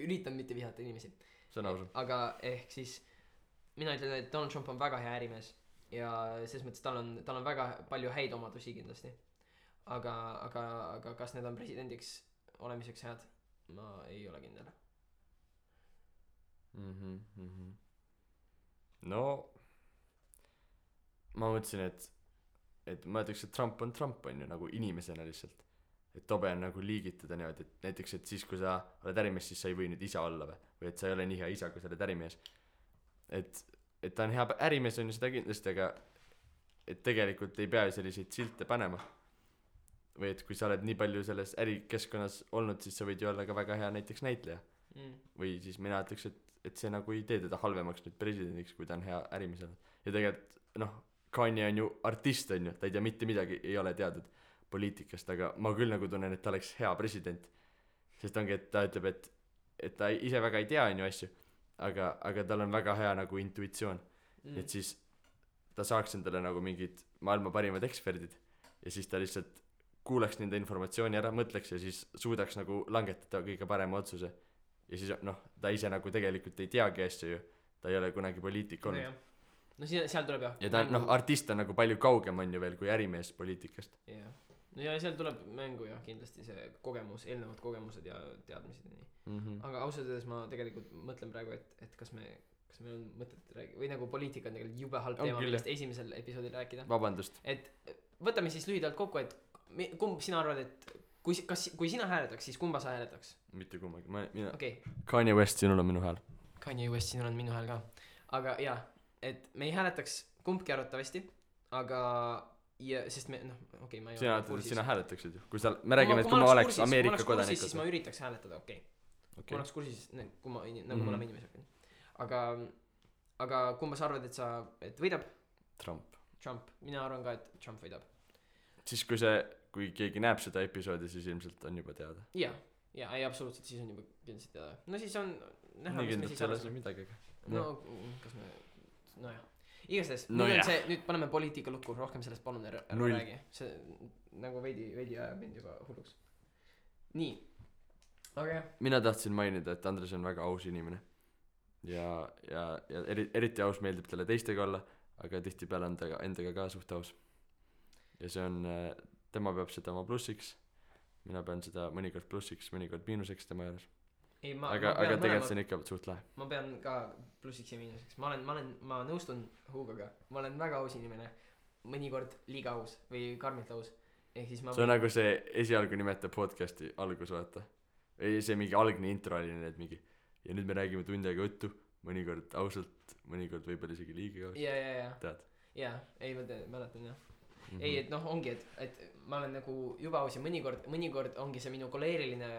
üritan mitte vihata inimesi. see on ausalt. aga ehk siis mina ütlen, et Donald Trump on väga hea ärimees ja selles mõttes tal on väga palju häid omadusi kindlasti, aga kas need on presidendiks olemiseks head, ma ei ole kindel. no ma mõtlesin, et ma ütleks, et Trump on ju nagu inimesena lihtsalt, et tobe on nagu liigitada niimoodi, et näiteks, et siis kui sa oled ärimees, siis sa ei või nüüd isa olla või et sa ei ole nii hea isa, kui sa oled ärimees, et ta on hea ärimees on ju seda kindlasti, aga et tegelikult ei pea selliseid silte panema või et kui sa oled nii palju selles ärikeskkonnas olnud, siis sa võid ju olla ka väga hea näiteks näitleja või siis mina ütleks, et see nagu ei tee teda halvemaks nüüd presidendiks, kui ta on hea ärimees olnud. Ja tegelikult noh, Kanye on ju artist on ju, ta ei tea mitte midagi, ei ole teadnud poliitikast, aga ma küll nagu tunnen, et ta oleks hea president, sest ongi, et ta ütleb, et ta ise väga ei tea on ju asju, aga tal on väga hea nagu intuitsioon, et siis ta saaks endale nagu mingid maailma parimad eksperdid ja siis ta lihtsalt kuulaks nende informatsiooni ära, mõtleks ja siis suudaks nagu langetada kõige parema otsuse ja siis noh, ta ise nagu tegelikult ei teagi asju ju, ta ei ole kunagi poliitik olnud. No seal tuleb jah. Ja ta noh, artist on nagu palju kaugem on ju veel kui ärimees poliitikast. Jah. No ja seal tuleb mängu jah, kindlasti see kogemus, eelnevad kogemused ja teadmised ja nii. Aga ausalt öeldes ma tegelikult mõtlen praegu, et kas meil on mõtet rääkida, või nagu poliitika on tegelikult jube halb teema, millest esimesel episoodil rääkida. Vabandust. Et võtame siis lühidalt kokku, et kumb sina arvad, et kui sina hääletaks, siis kumba sa hääletaks? Mitte kummagi, mina okay. Kanye West, sinul on minu hääl. Kanye West, sinul on minu hääl ka. Aga jah, et me ei hääletaks kumbki arvatavasti, aga ja sest me okei, ma ei ole kursis. Sina hääletaksid ju, kui sa me räägime, et kui ma oleks Ameerika kodanik, siis ma üritaks hääletada, okei. Kui ma oleks kursis, kui ma nagu me oleme inimesed. Aga kumba sa arvad, et võidab? Trump, mina arvan ka, et Trump võidab. Siis kui keegi näeb seda episoodi, siis ilmselt on juba teada. Ja, ei absoluutselt, siis on juba kindlasti teada. No siis on näha, mis me siis arvame midagi. No kas me nojah, igastahes nüüd paneme poliitika lukku, rohkem sellest palun ära räägi, see nagu veidi ajab mind juba hulluks. Nii, aga jah, mina tahtsin mainida, et Andres on väga aus inimene ja eriti aus, meeldib talle teistega olla, aga tihtipeale on ta endaga ka suht aus ja see on, tema peab seda oma plussiks, mina pean seda mõnikord plussiks, mõnikord miinuseks tema juures. ei ma aga ma pean tegelikult see on ikka suht lahe ma pean ka plussiks ja miinuseks ma nõustun Hugoga ma olen väga aus inimene mõnikord liiga aus või karmilt aus ehk siis ma see on nagu see esialgu nimetab podcast'i algus vaata ei see mingi algne intro oli need mingi ja nüüd me räägime tund aega juttu mõnikord ausalt mõnikord võib-olla isegi liiga ausalt ja tead jaa ei ma mäletan jah ei et noh ongi et ma olen nagu juba aus ja mõnikord ongi see minu koleeriline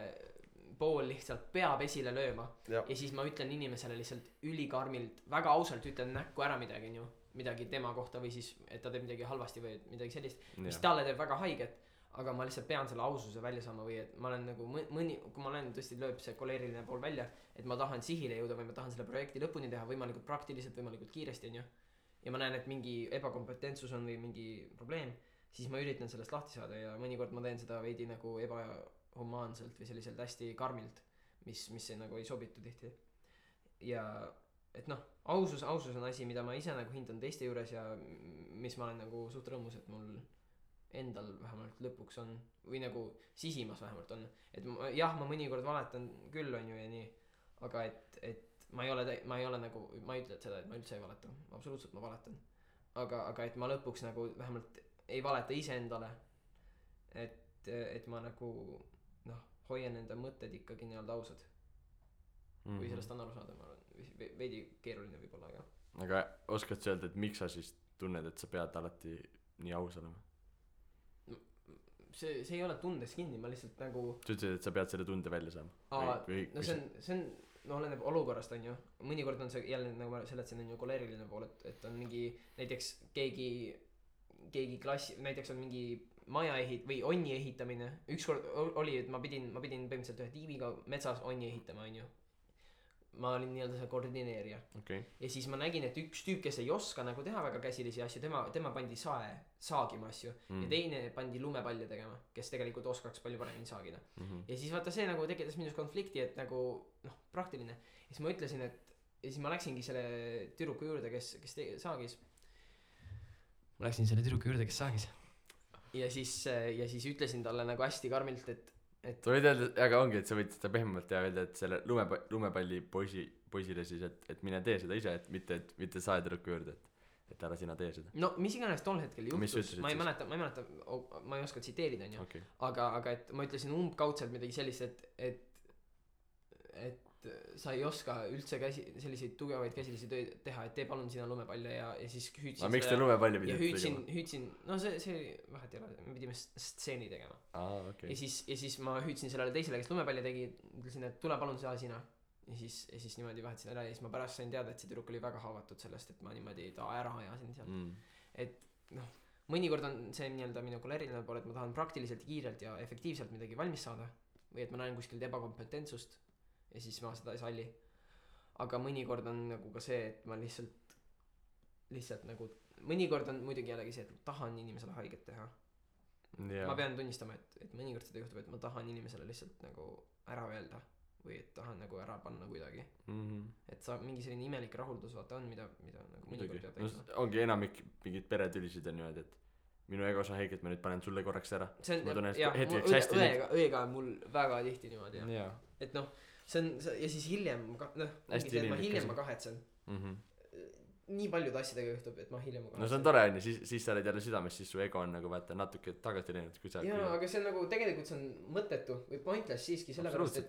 pool lihtsalt peab esile lööma ja siis ma ütlen inimesele lihtsalt ülikarmilt väga ausalt ütlen näkku ära midagi onju midagi tema kohta või siis et ta teeb midagi halvasti või midagi sellist mis talle teeb väga haiget aga ma lihtsalt pean selle aususe välja saama või et ma olen nagu kui ma olen tõesti lööb see koleeriline pool välja et ma tahan sihile jõuda või ma tahan selle projekti lõpuni teha võimalikult praktiliselt võimalikult kiiresti onju ja ma näen et mingi ebakompetentsus on või mingi probleem siis ma üritan sellest lahti saada ja mõnikord ma teen seda veidi nagu ebahumaanselt või selliselt hästi karmilt mis nagu ei sobitu tihti ja et noh ausus on asi mida ma ise nagu hindan teiste juures ja mis ma olen nagu suht rõõmus et mul endal vähemalt lõpuks on või nagu sisimas vähemalt on et jah ma mõnikord valetan küll onju ja nii aga et ma ei ole nagu ma ei ütle seda et ma üldse ei valeta absoluutselt ma valetan aga et ma lõpuks nagu vähemalt ei valeta iseendale et ma nagu noh hoian enda mõtted ikkagi nii-öelda ausad kui sellest on aru saada ma arvan veidi keeruline võib-olla aga oskad sa öelda et miks sa siis tunned et sa pead alati nii aus olema see ei ole tundes kinni ma lihtsalt nagu sa ütlesid et sa pead selle tunde välja saama no see on no oleneb olukorrast onju mõnikord on see jälle nagu ma seletasin on ju koleeriline pool et on mingi näiteks keegi klassi näiteks on mingi maja või onni ehitamine ükskord oli et ma pidin põhimõtteliselt ühe tiimiga metsas onni ehitama onju ma olin nii-öelda see koordineerija ja siis ma nägin et üks tüüp kes ei oska nagu teha väga käsilisi asju tema pandi saagima asju ja teine pandi lumepalle tegema kes tegelikult oskaks palju paremini saagida ja siis vaata see nagu tekitas minus konflikti et nagu noh praktiline ja siis ma ütlesin et ja siis ma läksingi selle tüdruku juurde kes saagis ja siis ütlesin talle nagu hästi karmilt et sa võid öelda aga ongi et sa võid seda pehmemalt teha öelda et selle lumepalli poisile siis et mine tee seda ise et mitte saa tüdruku juurde et ära sina tee seda no mis iganes tol hetkel juhtus ma ei mäleta ma ei oska tsiteerida onju aga et ma ütlesin umbkaudselt midagi sellist et sa ei oska üldse selliseid tugevaid käsilisi töid teha et tee palun sina lumepalle ja siis hüüdsin miks te lumepalli pidite tegema hüüdsin no see vahet ei ole me pidime stseeni tegema ja siis ma hüüdsin sellele teisele kes lumepalli tegi ütlesin et tule palun sina ja siis niimoodi vahetasin ära ja siis ma pärast sain teada et see tüdruk oli väga haavatud sellest et ma niimoodi ta ära ajasin sealt et noh mõnikord on see nii-öelda minu koleeriline pool et ma tahan praktiliselt kiirelt ja efektiivselt midagi valmis saada või et ma näen kuskilt ebakompetentsust ja siis ma seda ei salli aga mõnikord on nagu ka see et ma lihtsalt nagu mõnikord on muidugi jällegi see et ma tahan inimesele haiget teha ma pean tunnistama et mõnikord seda juhtub et ma tahan inimesele lihtsalt nagu ära öelda või et tahan nagu ära panna kuidagi et sa mingi selline imelik rahuldus vaata on mida nagu mõnikord peab tegema ongi enamik mingid peretülisid on niimoodi et minu ego sa haiget ma nüüd panen sulle korraks ära ma tunnen hetkeks hästi õega on mul väga tihti niimoodi et noh see on ja siis hiljem ma hiljem ma kahetsen nii paljude asjadega juhtub et ma hiljem no see on tore onju siis sa oled jälle südames siis su ego on nagu vaata natuke tagasi läinud kui sa jaa aga see on nagu tegelikult see on mõttetu või pointless siiski sellepärast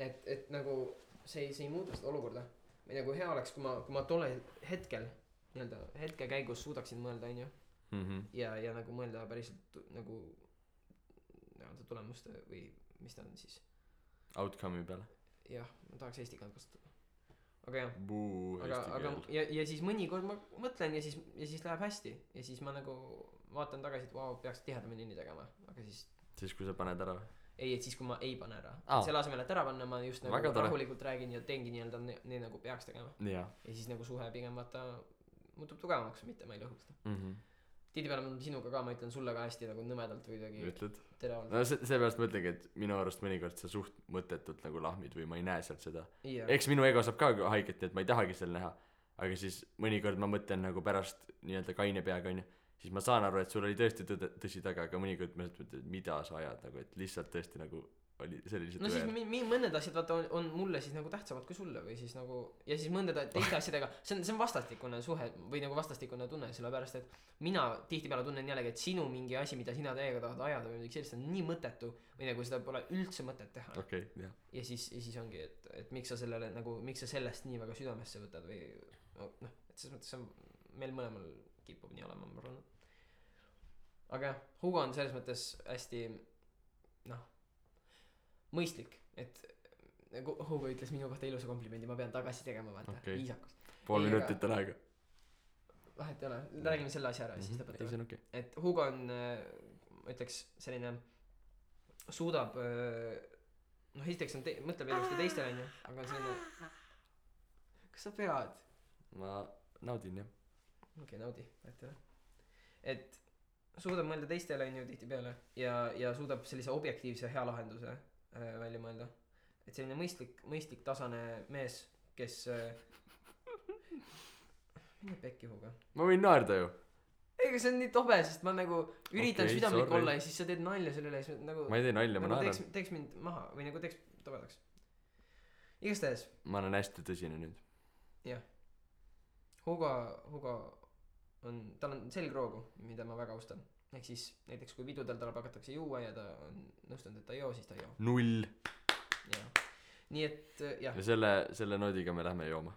et nagu see ei muuda seda olukorda või nagu hea oleks kui ma tolle hetkel nii-öelda hetke käigus suudaksin mõelda onju ja nagu mõelda päriselt nagu nii-öelda tulemuste või mis ta on siis outcome'i peale jah ma tahaks eesti keelt kasutada aga jah aga ja siis mõnikord ma mõtlen ja siis läheb hästi ja siis ma nagu vaatan tagasi et vau peaks tihedamini nii tegema aga siis kui sa paned ära või ei et siis kui ma ei pane ära selle asemel et ära panna ma just nagu rahulikult räägin ja teengi nii-öelda nii nagu peaks tegema ja siis nagu suhe pigem vaata muutub tugevamaks mitte ma ei lõhu seda tihtipeale sinuga ka ma ütlen sulle ka hästi nagu nõmedalt või kuidagi teravalt no seepärast ma ütlengi et minu arust mõnikord sa suht mõttetult nagu lahmid või ma ei näe sealt seda eks minu ego saab ka haiget nii et ma ei tahagi seal näha aga siis mõnikord ma mõtlen nagu pärast nii-öelda kaine peaga onju siis ma saan aru et sul oli tõesti tõsi taga aga mõnikord ma mõtlen et mida sa ajad nagu et lihtsalt tõesti nagu see oli lihtsalt no siis weird. mõned asjad vaata on mulle siis nagu tähtsamad kui sulle või siis nagu ja siis mõndade teiste asjadega see on vastastikune suhe või nagu vastastikune tunne sellepärast et mina tihtipeale tunnen jällegi et sinu mingi asi mida sina täiega tahad ajada või midagi sellist on nii mõttetu või nagu seda pole üldse mõtet teha okei, jah. ja siis ongi et miks sa sellele nagu miks sa sellest nii väga südamesse võtad või noh et selles mõttes see on meil mõlemal kipub nii olema ma arvan aga jah Hugo on selles mõttes hästi noh mõistlik et nagu Hugo ütles minu kohta ilusa komplimendi ma pean tagasi tegema vaata viisakus pool minutit on aega vahet ei ole räägime selle asja ära siis lõpetame okay. et Hugo on ütleks selline suudab noh esiteks on mõtleb ilusti teistele onju aga on selline kas sa pead ma naudin jah okei naudi vahet ei ole et suudab mõelda teistele onju tihtipeale ja suudab sellise objektiivse hea lahenduse välja mõelda et selline mõistlik tasane mees kes mine pekki Hugo ma võin naerda ju ega see on nii tobe sest ma nagu üritan südamlik olla ja siis sa teed nalja selle üle siis nagu ma ei tee nalja ma nagu naeran teeks mind maha või nagu teeks tobedaks igastahes ma olen hästi tõsine nüüd jah Hugo on tal on selgroogu mida ma väga austan ehk siis näiteks kui pidudel tal hakatakse juua ja ta on nõustunud et ta ei joo siis ta ei joo 0 jah nii et jah ja selle noodiga me lähme jooma